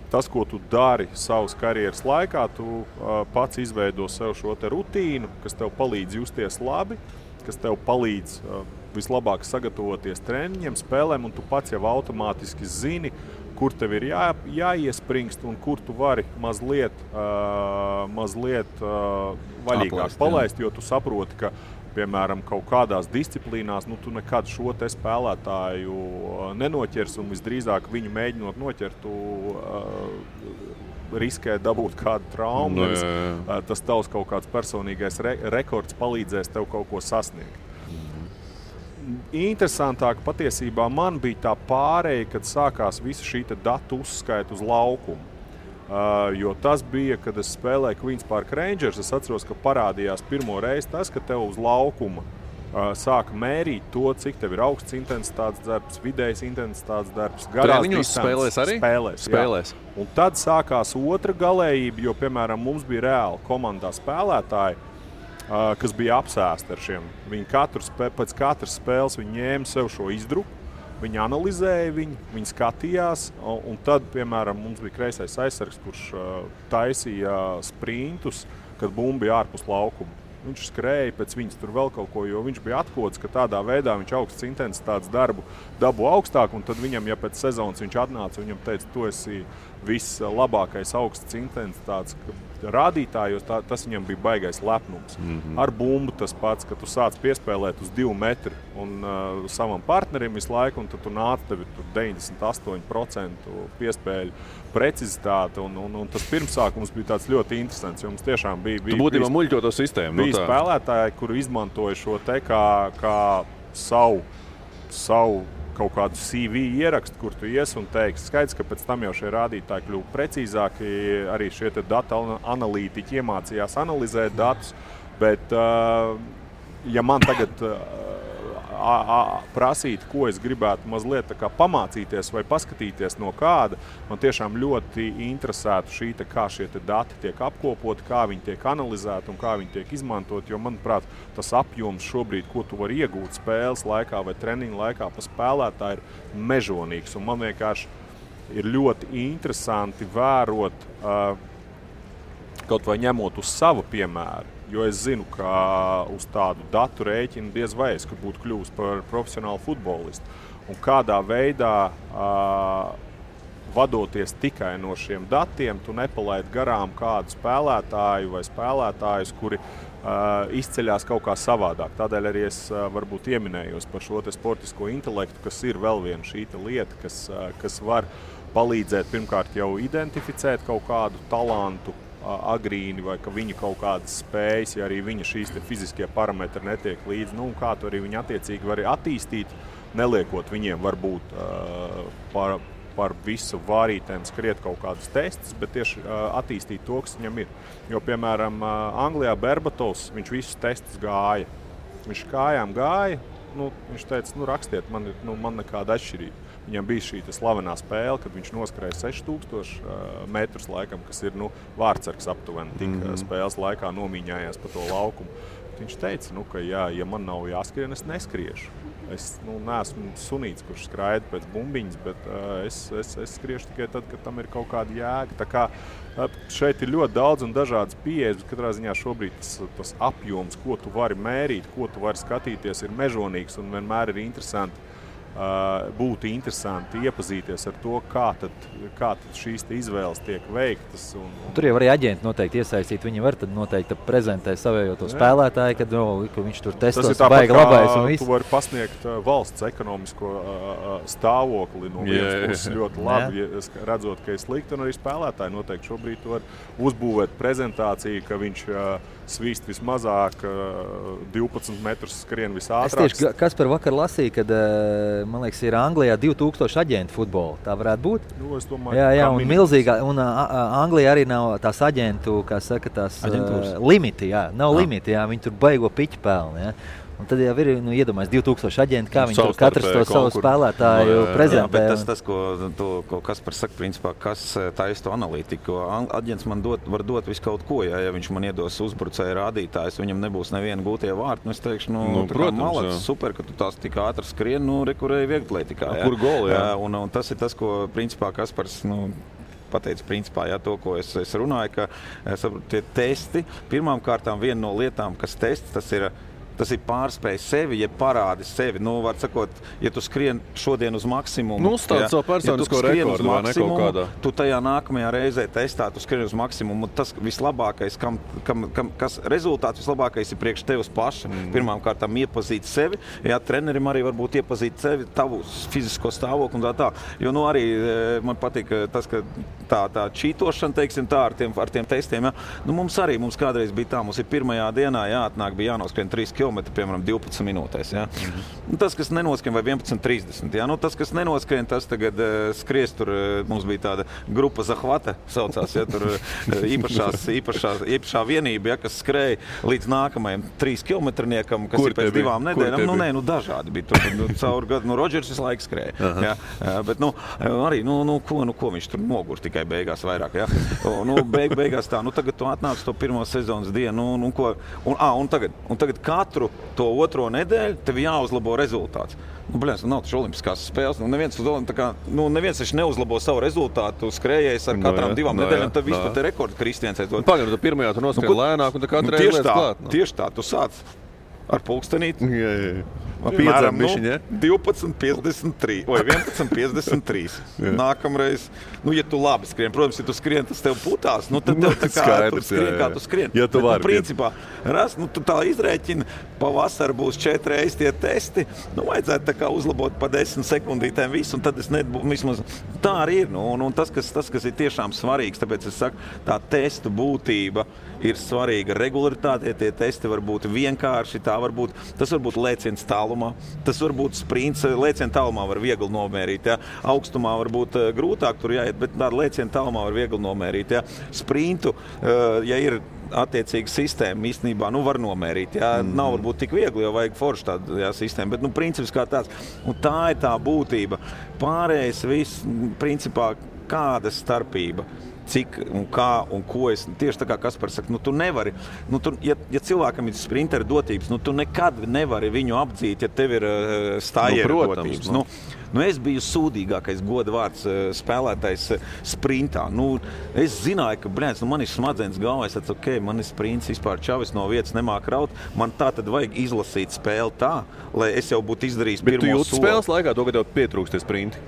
tas, ko tu dari savas karjeras laikā, tu pats izveido sev šo te rutīnu, kas tev palīdz justies labi, kas tev palīdz vislabāk sagatavoties treniņiem, spēlēm, un tu pats jau automātiski zini, kur tev ir jāiespringst un kur tu vari mazliet vaļīgāk palaist, jo tu saproti, ka, piemēram, kaut kādās disciplīnās, tu nekad šo te spēlētāju nenoķers un visdrīzāk viņu mēģinot noķert, tu riskē dabūt kādu traumu. Tas tavs kaut kāds personīgais rekords palīdzēs tev kaut ko sasniegt. Interesantāk patiesībā man bija tā pārēja, kad sākās visa šī datu uzskaita uz laukumu. Jo tas bija, kad es spēlēju Queens Park Rangers, es atceros, ka parādījās pirmo reizi tas, ka tev uz laukuma sāka mērīt to, cik tev ir augsts intensitātes darbs, vidējs intensitātes darbs, garās distances. Spēlēs. Un tad sākās otra galējība, jo, piemēram, mums bija reāli komandā spēlētāji, kas bija apsēsti ar šiem. Viņi pēc katras spēles viņi ņēma sev šo izdruku, viņi analizēja viņu, viņi skatījās, un tad, piemēram, mums bija kreisais aizsargs, kurš taisīja sprintus, kad bumba bija ārpus laukuma. Viņš skrēja pēc viņas tur vēl kaut ko, jo viņš bija atkods, ka tādā veidā viņš augsts intensitātes darbu dabu augstāk, un tad viņam, ja pēc sezonas viņš atnāca, viņam teica, tu esi vislabākais augsts intensitātes rādītājos, tas viņam bija baigais lepnums. Ar bumbu tas pats, ka tu sāc piespēlēt uz 2 metri un savam partnerim visu laiku, un tad tu nāc tevi tur 98% piespēļu precizitāte, un tas pirmsākums bija tāds ļoti interesants, jo mums tiešām bija tu būtībā muļķo to sistēmu. Bija spēlētāji, kuri izmantoja šo te kā savu kaut kādu CV ierakstu, kur tu ies un teiksi. Skaidrs, ka pēc tam jau šie rādītāji kļuva precīzāki, arī šie te data analītiķi iemācījās analizēt datus, bet ja man tagad prasīt, ko es gribētu mazliet tā kā pamācīties vai paskatīties no kāda, man tiešām ļoti interesētu šī, kā šie dati tiek apkopoti, kā viņi tiek analizēti un kā viņi tiek izmantot, jo, manuprāt, tas apjoms šobrīd, ko tu vari iegūt spēles laikā vai treniņu laikā pa spēlētāju, ir mežonīgs. Un man vienkārši ir ļoti interesanti vērot, kaut vai ņemot uz savu piemēru, jo es zinu, ka uz tādu datu rēķinu diez vai es būtu kļuvis par profesionālu futbolistu. Un kādā veidā, vadoties tikai no šiem datiem, tu nepalaid garām kādu spēlētāju vai spēlētājus, kuri izceļās kaut kā savādāk. Tādēļ arī es varbūt ieminējos par šo te sportisko intelektu, kas ir vēl viena šī lieta, kas var palīdzēt pirmkārt jau identificēt kaut kādu talantu, agrīni vai ka viņa kaut kādas spējas, ja arī viņa šīs te fiziskie parametri netiek līdzi, un kā to arī viņa attiecīgi var attīstīt, neliekot viņiem varbūt par visu vārītēm skriet kaut kādus testus, bet tieši attīstīt to, kas viņam ir. Jo, piemēram, Anglijā Berbatovs, viņš visus testus gāja. Viņš kājām gāja, viņš teica, rakstiet, man nekāda atšķirība. Viņam bija šī slavenā spēle, kad viņš noskrēja 6000 metrus laikam, kas ir vārtsargs aptuveni, tik spēles laikā nomīņājās pa to laukumu. Viņš teica, ka ja man nav jāskrien, es neskriešu. Es neesmu sunīts, kurš skraida pēc bumbiņas, bet es skriešu tikai tad, kad tam ir kaut kāda jēga. Tā kā šeit ir ļoti daudz un dažādas pieejas, bet katrā ziņā šobrīd tas apjoms, ko tu vari mērīt, ko tu vari skatīties, ir mežonīgs un vienmēr ir interesanti. Būtu interesanti iepazīties ar to, kā tad šīs izvēles tiek veiktas. Tur jau arī aģenti noteikti iesaistīt. Viņi var tad noteikti prezentēt savējo to spēlētāju, kad viņš tur testos baigi labais un viss. Tu vari pasniegt valsts ekonomisko stāvokli no vienas puses ļoti labi, redzot, ka ir slikti, un arī spēlētāji noteikti šobrīd var uzbūvēt prezentāciju, ka viņš svīst vismazāk, 12 metrus skrien visātrāk. Es tieši Kaspar vakar lasīju, kad man liekas, ir Anglijā 2000 aģentu futbola. Tā varētu būt? Es domāju, jā, un milzīgā. Un Anglijā arī nav tās aģentu, kā saka, tās limiti. Jā, nav limiti, jā, viņi tur baigo piķi pelni. Jā. Un tad jau ir iedomājies 2000 aģenti, kā viņi tur katrs to savu spēlētāju prezentē. Jā, bet tas, ko Kaspars saka, principā, kas taisa to analītiku. Aģents man var dot visu kaut ko, ja viņš man iedos uzbrucēju rādītājus, viņam nebūs neviena gūtie vārti. Es teikšu, malāks, super, ka tu tās tik ātri skrien, rekurēji vieglietikā. Kur goli, jā. Un tas ir tas, ko principā Kaspars, pateicu principā, to, ko es runāju, ka tie testi, pirmām kārtām viena no lietām, kas tests, tas ir pārspēj sevi, ja parādi sevi. Var sakot, ja tu skrien šodien uz maksimumu, uzstādi savu personisko rekordu vai ne kaut kādā. Tu tajā nākamajā reizē testā, tu skrien uz maksimumu. Tas vislabākais, kas rezultāts vislabākais ir priekš tevis paša. Pirmām kārtām iepazīt sevi, trenerim arī varbūt iepazīt sevi, tavu fizisko stāvokli un tā. Jo arī man patīk tas, ka tā čītošana, teiksim tā, ar tiem testiem. Mums kādreiz bija tā, mums ir pirmajā dienā jāatnāk, bija jānoskrien 3 km, piemēram, 12 minūtēs. Ja? Tas, kas nenoskrien, vai 11.30. Ja? Tas, kas nenoskrien, tas tagad skries tur. Mums bija tāda grupa Zahvata, saucās, ja? Tur īpašā vienība, ja? Kas skrēja līdz nākamajam 3 kilometrniekam, kas ir pēc 2 nedēļām. Dažādi bija. Tur caur gadu, Rodžers visu laiku skrēja. Ja? Bet, arī, ko viņš tur nogur tikai beigās vairāk. Ja? Beigās tā, tagad tu atnāc to pirmo sezonas dienu, un tagad katru to otro nedēļu tev jāuzlabo rezultāts. Nav taču olimpiskās spēles. Neviens taču neuzlabo savu rezultātu skrējējis ar katrām 2 nedēļām, tad vispār te rekordu Kristians aizdod. Pagaid, tu pirmajā tu noskrien lēnāk, un tā katru reizi lietas klāt. Tieši tā, tu sāc ar pulkstenīti. Piedzem bišķiņ, ja? 12.53 vai 11.53. Nākamreiz, ja tu labi skrien, protams, ja tu skrien, tas tev putās, tad tev tā kā tu skrien, kā tu skrien. Ja tu vari. Principā, tu tā izrēķini, pavasar būs 4 reizi tie testi, vajadzētu tā kā uzlabot pa 10 sekundītēm visu, un tad es vismaz tā arī ir. Un tas, kas ir tiešām svarīgs, tāpēc es saku, tā testu būtība ir svarīga. Regularitāte, tie testi var būt vienkārši, tas var būt lēciens tālumā, tas var būt sprints, lēciena tālumā var viegli nomērīt, ja? Augstumā var būt grūtāk tur jāiet, bet tāda lēciena tālumā var viegli nomērīt. Ja? Sprintu, ja ir attiecīga sistēma, īstenībā var nomērīt. Ja? Nav varbūt tik viegli, jo vajag forši tādu sistēmu, bet princips kā tāds. Un tā ir tā būtība. Pārējais viss, principā, kāda starpība. Cik un kā un ko es tieši tā kā Kaspars saka, tu nevari, ja cilvēkam ir sprintera dotības, tu nekad nevari viņu apdzīt, ja tev ir stājieru dotības. Es biju sūdīgākais goda vārds spēlētājs sprintā. Es zināju, ka, man ir smadzenes galvā, es teicu, man ir sprints vispār čavis no vietas nemāk raut, man tā tad vajag izlasīt spēli tā, lai es jau būtu izdarījis pirmo soli. Bet tu jūti spēles laikā to, ka tev pietrūkst tie sprinti?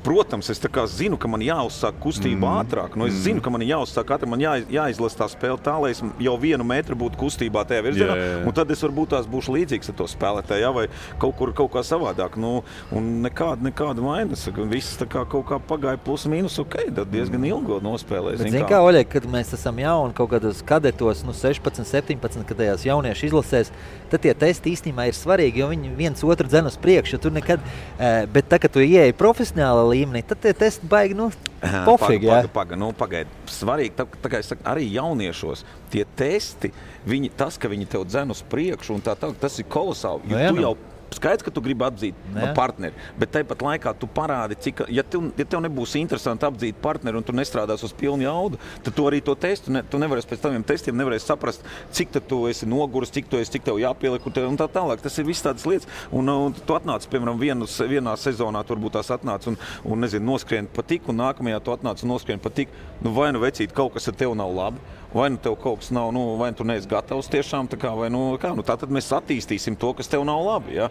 Protams, es tā kā zinu, ka man jāuzsāk kustība ātrāk. Es zinu, ka man jāuzsāk ātrāk, man jāizlasa tā spēle tā, lai es jau 1 metru būtu kustībā tajā virzienā. Un tad es varbūt būšu līdzīgs ar to spēlētāju, vai kaut kā savādāk. Un nekāda vainas. Viss tā kā kaut kā pagāja plus mīnus, tad diezgan ilgo nospēlēs. Bet zini kā, Oļeg, kad mēs esam jauni kaut kādos kadetos, 16, 17, kad tajās jauniešu izlasēs, tad tie testi īstenībā ir svarīgi, jo viņi viens otru dzen uz priekšu. Tur nekad, bet tā, kad tu ieeji profesionāla līmenī, tad tie testi baigi, pofīgi, jā? Pagaid. Svarīgi, tā kā es saku, arī jauniešos tie testi, tas, ka viņi tev dzen uz priekšu un tā, tas ir kolosāli, jo tu jau skaidrs, ka tu gribi apdzīt partneri, bet tāpat laikā tu parādi, ja tev nebūs interesanti apdzīt partneri un tu nestrādās uz pilnu jaudu, tad tu arī to testu, tu nevarēsi pēc taviem testiem saprast, cik tu esi noguris, cik tev jāpieliek un tā tālāk. Tas ir viss tādas lietas. Un tu atnāc, piemēram, vienā sezonā tu varbūt tās atnāc un noskrien pa tik, un nākamajā tu atnāc un noskrien pa tik. Vai vecīt, kaut kas ar tev nav labi, vai tev kaut kas nav, vai tu neesi gatavs tiešām, tā kā, tā tad mēs attīstīsim to, kas tev nav labi, ja?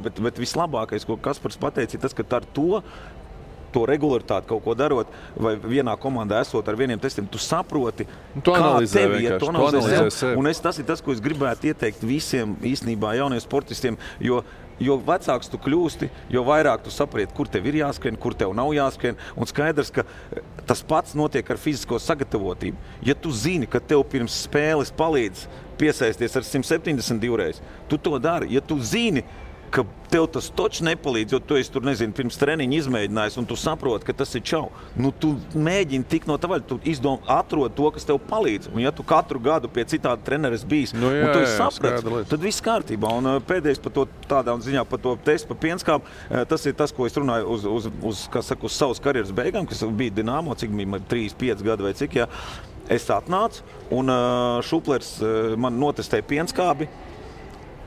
Bet vislabākais, ko Kaspars pateica, ir tas, ka ar to regularitāti kaut ko darot, vai vienā komandā esot ar vieniem testiem, tu saproti, kā tev iet, tu analizē sevi. Un tas ir tas, ko es gribētu ieteikt visiem īstenībā jauniem sportistiem, jo vecāks tu kļūsti, jo vairāk tu saproti, kur tev ir jāskrien, kur tev nav jāskrien. Un skaidrs, ka tas pats notiek ar fizisko sagatavotību. Ja tu zini, ka tev pirms spēles palīdz piesaisties ar 172 reizi, tu to dari. Ja tu zini, ka tev tas točs nepalīdz, jo tu esi tur, pirms treniņa izmēģinājis, un tu saproti, ka tas ir čau. Tu mēģini tikt no tā vaļa, tu atrod to, kas tev palīdz. Un ja tu katru gadu pie citāda treneris bijis, un tu esi saprats, tad viss kārtībā. Un pēdējais par to tādā ziņā, par to testu par pienskābu, tas ir tas, ko es runāju uz savas karjeras beigām, kas bija Dinamo, cik bija 3-5 gadi vai cik, ja. Es atnācu, un Šuplers man notestēja pienskābi,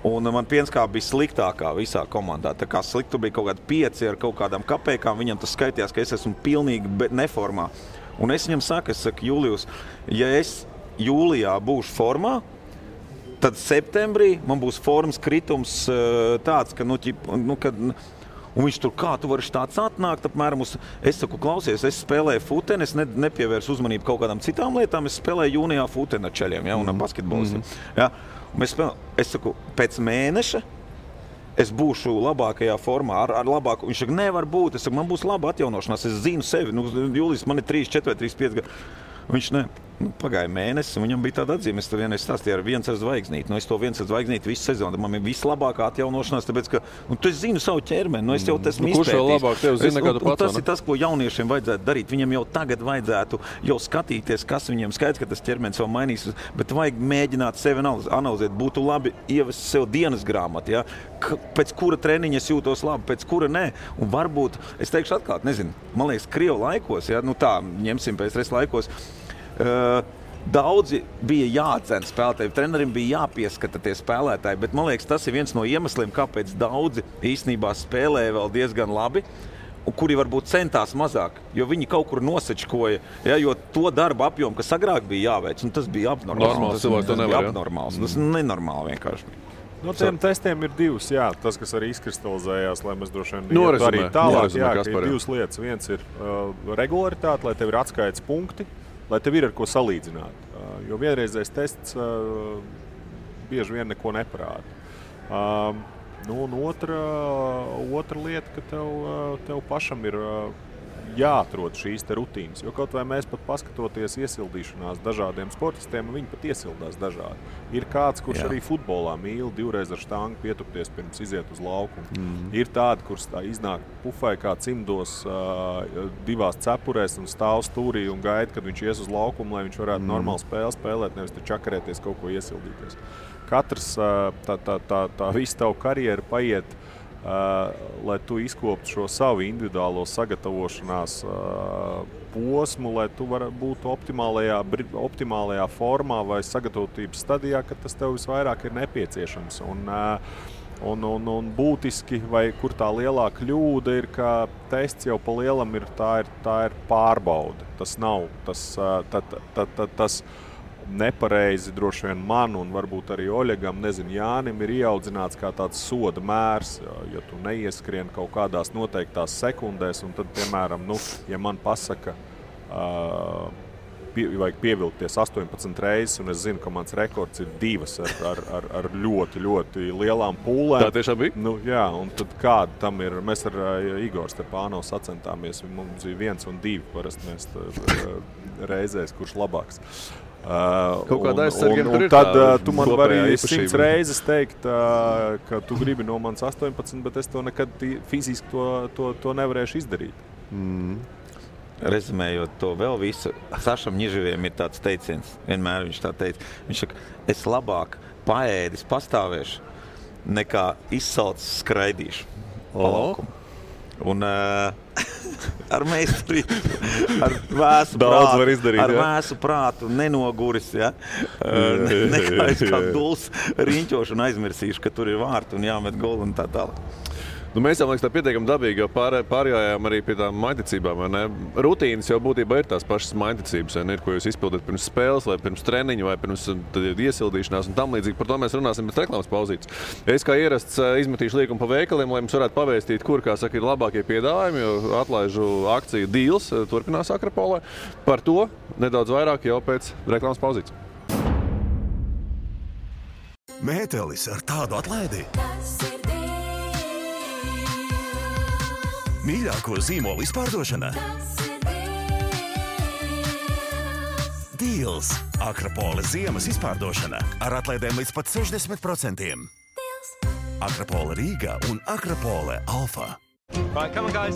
un man pienskāba bija sliktākā visā komandā. Tā kā sliktu bija kaut kādi 5 ar kaut kādām kapēkām, viņam tas skaitījās, ka es esmu pilnīgi neformā. Un es viņam saku, Julijus, ja es jūlijā būšu formā, tad septembrī man būs formas kritums tāds, ka, un viņš tur, kā tu vari tāds atnākt, apmēram es saku, klausies, es spēlēju futeni, es nepievērsu uzmanību kaut kādām citām lietām, es spēlēju jūnijā futeni ar čeļiem, ja, un ar basketbolistiem. Ja. Es saku, pēc mēneša es būšu labākajā formā, ar labāku. Viņš saka, nevar būt, es saku, man būs laba atjaunošanās, es zinu sevi. Jūlijs, man ir 3, 4, 3, 5 gadi. Viņš Pagāja mēnesis, un viņam bija tāda atzīme, es tur vienreiz stāstīju ar viens ar zvaigznīti. Es to viens ar zvaigznīti visu sezonu, man ir vislabākā atjaunošanās, tāpēc, ka tu zinu savu ķermeni, es jau esmu izpētījis. Kurš vēl labāk tev zina, kā tu pats? Tas ir tas, ko jauniešiem vajadzētu darīt. Viņam jau tagad vajadzētu jau skatīties, kas viņam skaidrs, ka tas ķermenis vēl mainīs, bet vajag mēģināt sevi analizēt. Būtu labi ievest sev dienas grāmatu, ja? Pēc kura treniņa es jūtos labi, pēc kura nē. Un varbūt, es teikšu atklāt, nezinu, man liekas, Krievu laikos, ja? Tā, ņemsim pēc laikos, daudzi bija jāatdzen spēlētāji, trenerim bija jāpieskata tie spēlētāji, bet man liekas, tas ir viens no iemesliem, kāpēc daudzi īstenībā spēlēja vēl diezgan labi, un kuri varbūt centās mazāk, jo viņi kaut kur nosečkoja, ja, jo to darba apjomu, kas agrāk bija jāveic, un tas bija abnormāls. Tas bija abnormāls, tas nenormāli vienkārši. No tiem testiem ir divas, jā, tas, kas arī izkristalizējās, lai mēs droši vien arī tālāk, jā, ka ir divas lietas. Viens ir regularitāte, lai tev ir atskaites punkti, lai tev ir ar ko salīdzināt. Jo vienreizējais tests bieži vien neko neparāda. Un otra lieta, ka tev pašam ir jāatrod šīs te rutīnas. Jo kaut vai mēs pat paskatoties iesildīšanās dažādiem sportistiem, viņi pat iesildās dažādi. Ir kāds, kurš arī futbolā mīl divreiz ar štangu pietupties pirms iziet uz laukumu. Ir tādi, kurš iznāk pufai kā cimdos divās cepurēs un stāv stūrī un gaida, kad viņš ies uz laukumu, lai viņš varētu normāli spēli spēlēt, nevis te čakarēties kaut ko iesildīties. Katrs tā visa tavu karjeru paiet, lai tu izkoptu šo savu individuālo sagatavošanās posmu, lai tu būtu optimālajā formā vai sagatavotības stadijā, kad tas tev visvairāk ir nepieciešams. Un būtiski, vai kur tā lielā kļūda ir, ka tests jau pa lielam ir pārbaude. Tas nav tas nepareizi droši vien man un varbūt arī Oļegam, Jānim ir ieaudzināts kā tāds soda mērs, ja tu neieskrien kaut kādās noteiktās sekundēs, un tad, piemēram, ja man pasaka, vajag pievilkties 18 reizes, un es zinu, ka mans rekords ir 2 ar ļoti, ļoti lielām pūlēm. Tā tiešām bija? Jā, un tad kāda tam ir? Mēs ar Igoru Stepānovu sacentāmies, mums bija 1 un 2, parasti mēs reizēs, kurš labāks. Un tad tu man vari 100 reizes teikt, ka tu gribi no manis 18, bet es to nekad fiziski to nevarēšu izdarīt. Rezumējot to vēl visu, Sašam Ņiževiem ir tāds teiciens, vienmēr viņš tā teica. Viņš saka, es labāk paēdis pastāvēšu, nekā izsalcis skraidīšu pa laukumu. Un ar meistarību, ar vēsu prātu nenoguris, ja? Nekā es kā duls riņķošu un aizmirsīšu, ka tur ir vārti un jāmet golu un tā tālāk. Mēs jau, liekas, tā pietiekami dabīgi, jo pārgājām arī pie tām maiticībām. Rutīnas jau būtībā ir tās pašas maiticības, ir, ko jūs izpildat pirms spēles, vai pirms treniņa, vai pirms iesildīšanās un tam līdzīgi. Par to mēs runāsim pēc reklāmas pauzītes. Es kā ierasts izmetīšu līkumu pa veikaliem, lai mums varētu pavēstīt, kur, kā saka, ir labākie piedāvājumi, jo atlaižu akciju Deals turpinās Akropolē. Par to nedaudz vairāk jau pēc reklāmas pauzītes. Mētelis ar tādu atlaidi. Mīļāko zīmolu izpārdošana. Deals. Akropole ziemas izpārdošana ar atlaidēm līdz pat 60%. Akropole Rīga un Akropole Alfa. Right, come on, guys.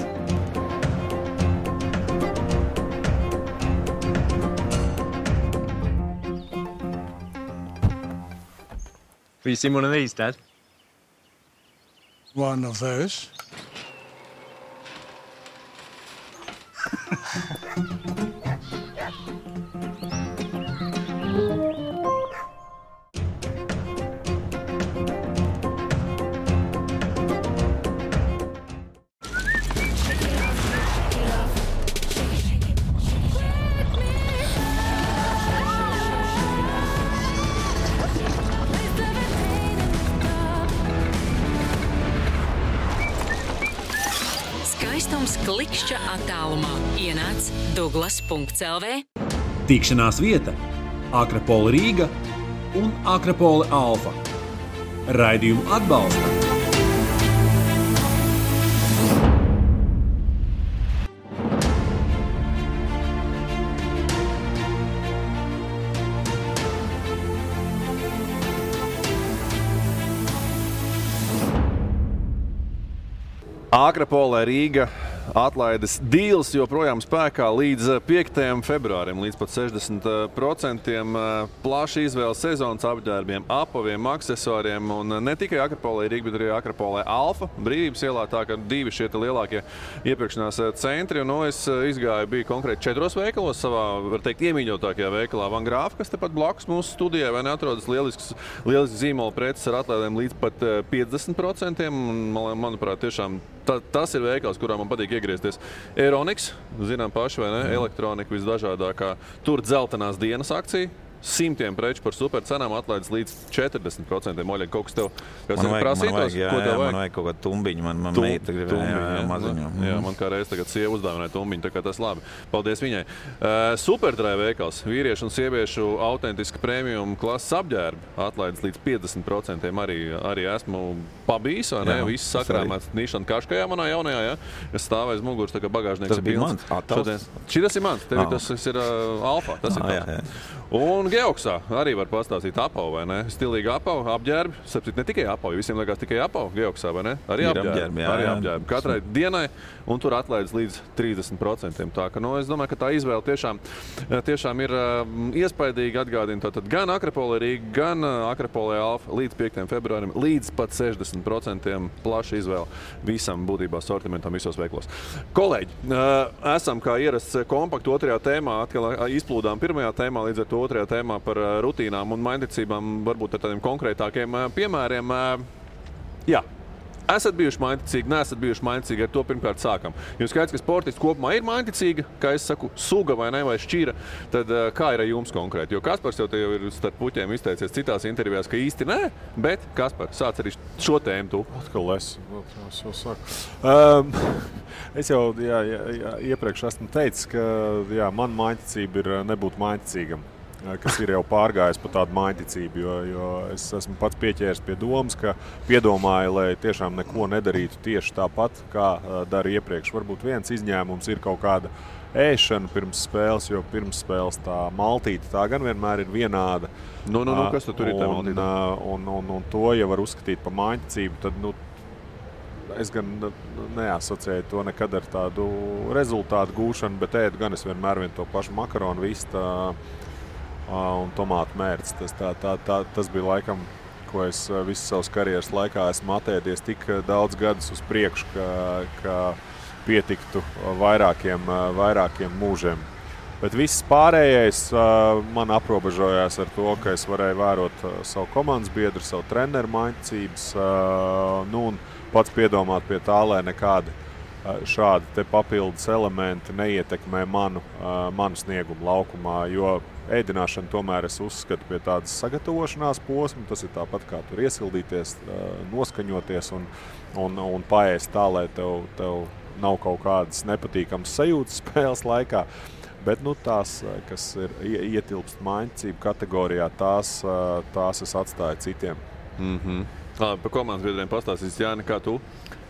Have you seen one of these, Dad? One of those. Klikšķa attālumā ienāc Douglas.lv. Tikšanās vieta Akropole Rīga un Akropole Alfa. Raidījumu atbalsta Akrapolē Rīga atlaides dīls joprojām spēkā līdz 5. februārim, līdz pat 60%. Plaša izvēle sezonas apģērbiem, apaviem, aksesuāriem un ne tikai Akrapolē Rīga, bet arī Akrapolē Alfa, Brīvības ielā, tā ka 2 šie lielākie iepirkšanās centri. Un es izgāju, biju konkrēti 4 veikalos, savā, var teikt, iemīļotākajā veikalā Van Grāfa, kas tepat blakus mūsu studijai, vai neatrodas lielisks zīmola preces ar atlaidēm līdz pat 50%. Un, manuprāt, tiešām tas ir veikals, kurā man patīk iegriezties. Euroniks, zinām paši, vai ne? Elektronika visdažādākā. Tur dzeltenās dienas akcija. 100 preču par supercenām atlaides līdz 40%. Oļeg, kaut kas tev prasītos? Man vajag kaut kādu tumbiņu. Man meita gribēja maziņu. Jā, man kā reiz tagad sieva uzdāvināja tumbiņu, tā kā tas labi. Paldies viņai. Superdrive veikals. Vīriešu un sieviešu autentiski premium klases apģērbi. Atlaides līdz 50%. Arī esmu pabijis, vai ne? Viss sakrāmēts Nišana Kaškajā manā jaunajā, ja? Es stāvēju muguras, tā kā bagāžnieks ir pilns. Šitas ir mans. Tev tas ir Alfa. Tas ir tas. Un Geoksā arī var pastāstīt apavu, vai ne? Stilīgi apavu, apģērbi. Sapcīt, ne tikai apavu, visiem liekas tikai apavu Geoksā, vai ne? Arī apģērbi. Arī apģērbi. Katrai dienai, un tur atlaides līdz 30%. Tā ka, es domāju, ka tā izvēle tiešām ir iespaidīga. Atgādina tātad gan Akrapolē Rīga, gan Akrapolē Alfa līdz 5. februārim, līdz pat 60% plaša izvēle visam būtībā sortimentam visos veiklos. Kolēģi, esam kā ierasts kompaktu 2. tēmā, atkal izplūdām 1. tēmā, līdz ar to 2. tēmā par rutīnām un mainticībām, varbūt ar tādiem konkrētākiem piemēriem. Jā. Esat bijuši mainticīgi, neesat bijuši mainticīgi, ar to pirmkārt sākam. Jūs skaidrs, ka sportists kopumā ir mainticīga, kā es saku, suga vai ne, vai šķira, tad kā ir ar jums konkrēti? Jo Kaspars jau te ir starp puķiem izteicies citās intervijās, ka īsti nē, bet Kaspar, sāc arī šo tēmu tu. Atkal es jau saku. Es jau iepriekš esmu teicis, ka man mainticība ir nebūt mainticīgam. Kas ir jau pārgājis par tādu mainticību, jo es esmu pats pieķēries pie domas, ka piedomāju, lai tiešām neko nedarītu tieši tāpat, kā dara iepriekš. Varbūt viens izņēmums ir kaut kāda ēšana pirms spēles, jo pirms spēles tā maltīte tā gan vienmēr ir vienāda. Kas tur ir tā maltīte? Un to, ja var uzskatīt par mainticību, tad es gan neasociēju to nekad ar tādu rezultātu gūšanu, bet ēdu gan es vienmēr to pašu makaronu vistu un tomātu mērci. Tas bija laikam, ko es visu savas karjeras laikā esmu atēdies tik daudz gadus uz priekšu, ka pietiktu vairākiem mūžiem. Bet viss pārējais man aprobežojās ar to, ka es varēju vērot savu komandas biedru, savu treneru mainticības, un pats piedomāt pie tā, lai nekādi šādi te papildus elementi neietekmē manu sniegumu laukumā, jo ēdināšana tomēr es uzskatu pie tādas sagatavošanās posma. Tas ir tāpat kā tur iesildīties, noskaņoties un paēst tā, lai tev nav kaut kādas nepatīkamas sajūtas spēles laikā. Bet tās, kas ir ietilpst mainticību kategorijā, tās es atstāju citiem. Par komandas biedriem pastāstīs, Jāni, kā tu?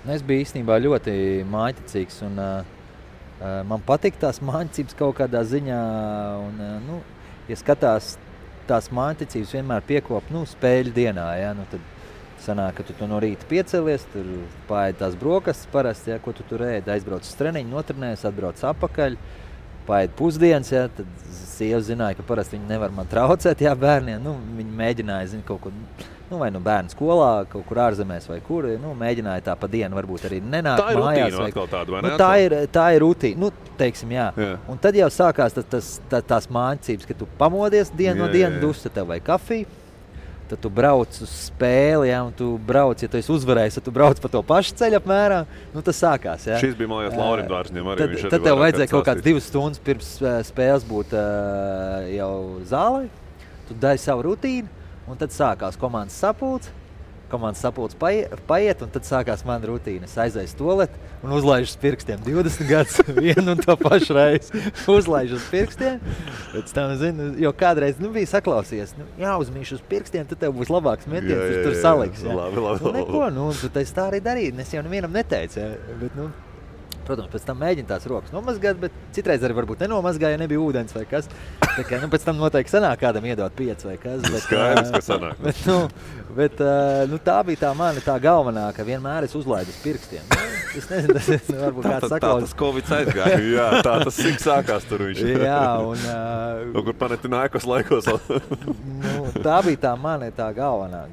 Es biju īstenībā ļoti mainticīgs un man patīk tās mainticības kaut kādā ziņā. Ja skatās tās mainticības vienmēr piekop spēļu dienā, ja, tad sanāk, ka tu no rīta piecelies, tur paēd tās brokastis parasti, ja, ko tu tur ēd, aizbrauc uz treniņu, notrenējies, atbrauc apakaļ, paēd pusdienas, ja, tad sieva zināja, ka parasti viņi nevar man traucēt, ja, bērniem, viņi mēģināja, kaut ko, vai bērnu skolā, kaut kur ārzemēs vai kur, mēģināja tā pa dienu varbūt arī nenākt mājās. Tā ir rutīna atkal tāda, vai ne? Tā ir rutīna, teiksim, jā. Un tad jau sākās tās mācības, ka tu pamodies dienu no dienu, dus, tad tev vai kafiju, tad tu brauc uz spēli, ja, un tu brauc, ja tu esi uzvarējis, tad tu brauc pa to pašu ceļu apmēram, tas sākās, jā. Šis bija, man liekas, Laurim Dārzņiem arī. Tad tev vajadzēja kaut kāds 2 stundas pirms spēles būt jau zālē, tu dari savu rutīnu, un tad sākās komandas sapulce paiet, un tad sākās mana rutīna. Es aizēju tualeti un uzlaižu uz pirkstiem 20 gadus vienu un to pašu reizi. Uzlaižu uz pirkstiem, pēc tam, jo kādreiz bija saklausījies, jāuzmīšu uz pirkstiem, tad tev būs labāks metiens, tur saliks. Ja. Labi. Neko, tu tā arī darīji, es jau nevienam neteicu, ja. Bet, Protams, pēc tam mēģina tās rokas nomazgāt, bet citreiz arī varbūt nenomazgāja, ja nebija ūdens vai kas. Tā kā, pēc tam noteikti sanāk kādam iedot 5 vai kas. Bet, Skaidrs, ka sanāk. Bet tā bija tā mana tā galvenā, ka vienmēr es uzlaidu uz pirkstiem. Es nezinu, tas varbūt kāds saklaus. Tā tas Covid aizgāja. Jā, tā tas sik sākās tur viņš. Jā, un... kur Panathinaikos laikos. Tā bija tā mana tā galvenā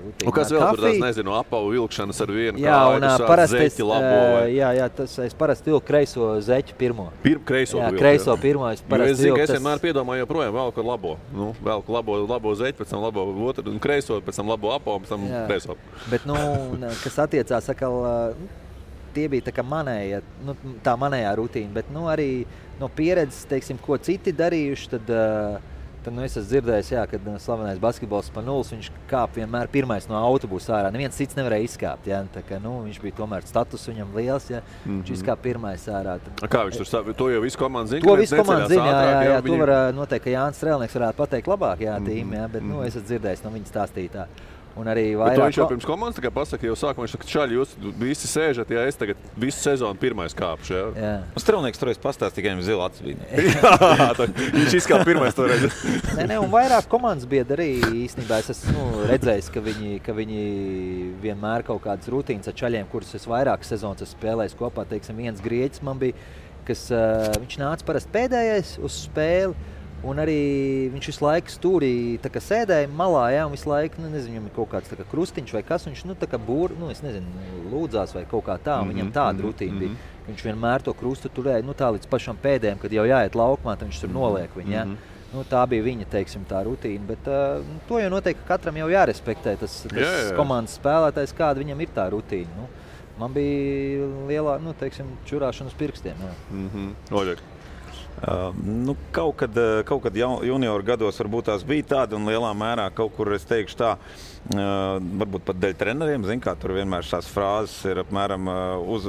rutīna. Un kas vēl tur tās, nezinu, apavu vilkšanas ar vienu jā, kāju, zeķi labo vai? Jā, tas es parasti vilku kreiso zeķu pirmo. Kreiso jā, vilku, kreiso pirmo es parasti es zinu, vilku. es vienmēr piedomāju joprojām velku labo. Velku labo zeķi, pēc tam labo otru, un kreiso, pēc tam labo apavu, pēc tam kreiso. Bet, kas attiecās atkal, tie bija tā kā manēja, tā manējā rutīna, bet arī no pieredzes, teiksim, ko citi darījuši, tad es esmu dzirdējis, kad slavenais basketbols Spanulis, viņš kāp vienmēr pirmais no autobusa ārā. Neviens cits nevarēja izkāpt, jā, tā kā, viņš bija tomēr status viņam liels, jā, viņš izkāp pirmais ārā. Tad, kā viņš tur to jau visu komandu zina? To visu komandu zina, jā, to var noteikti, ka Jānis Strēlnieks varētu pateikt labāk, jā, tīm, jā, bet, es esmu dzirdējis no viņa stāstītā. Un arī vairāk... Bet viņš jau pirms komandas tikai pasaka, jau sākumā viņš saka, čaļi, jūs visi sēžat, ja es tagad visu sezonu pirmais kāpšu, jā? Un Strēlnieks toreiz pastāst tikai viņam zila acis bija. Jā, viņš izkāp pirmais toreiz. Nē, un vairāk komandas biedri arī īstenībā es esmu redzējis, ka viņi vienmēr kaut kādas rutīnas ar čaļiem, kurus es vairāk sezonas esmu spēlējis kopā. Teiksim, viens grieķis man bija, kas viņš nāca parasti pēdējais uz spēli. Un arī viņš visu laiku stūrī sēdēja malā, jā, un visu laiku, nezinu, viņam ir kaut kāds krustiņš vai kas, viņš, es nezinu, lūdzās vai kaut kā tā, un viņam tāda rutīna bija. Viņš vienmēr to krustu turēja, tā līdz pašam pēdējiem, kad jau jāiet laukumā, tad viņš tur noliek viņu, jā. Tā bija viņa, teiksim, tā rutīna, bet to jau noteikti katram jau jārespektē, tas komandas spēlētājs, kāda viņam ir tā rutīna. Man bija lielā, teiksim, čurāšana uz pirkstiem, jā. Oļek. Kaut kad junioru gados varbūt tās bija tāda un lielā mērā kaut kur es teikšu tā, varbūt pat dēļ treneriem, tur vienmēr šās frāzes ir apmēram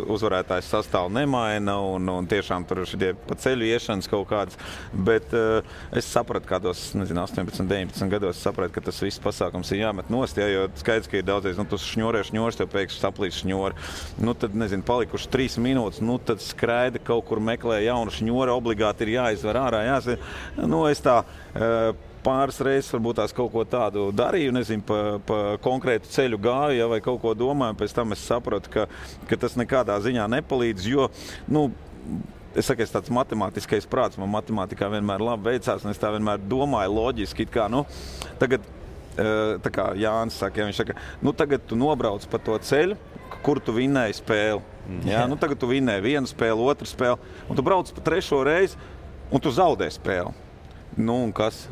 uzvarētājs sastāvu nemaina un tiešām tur šitie pa ceļu iešanas kaut kādas, bet es sapratu kādos, 18, 19 gados sapratu, ka tas viss pasākums ir jāmet nost, jo skaidrs, ka ir daudzies, tu šņories, tev pēkšņi saplīs šņori, tad, palikuši 3 minūtes, tad skraida kaut kur meklē jaunu šņori, obligāti ir jāizvar ārā, es tā pāris reizes varbūt tās kaut ko tādu darīju, nezinu, pa konkrētu ceļu gāju, vai kaut ko domāju, pēc tam es sapratu, ka tas nekādā ziņā nepalīdz, jo, es saku, es tāds matemātiskais prāts, man matemātikā vienmēr labi veicās, un es tā vienmēr domāju loģiski, tagad, tā kā Jānis saka, viņš saka, tagad tu nobrauc pa to ceļu, kur tu vinnēji spēli. Jā, tagad tu vinnēji vienu spēli, otru spēli, un tu brauc pa 3. reizi, un tu zaudē spēli. Un kas?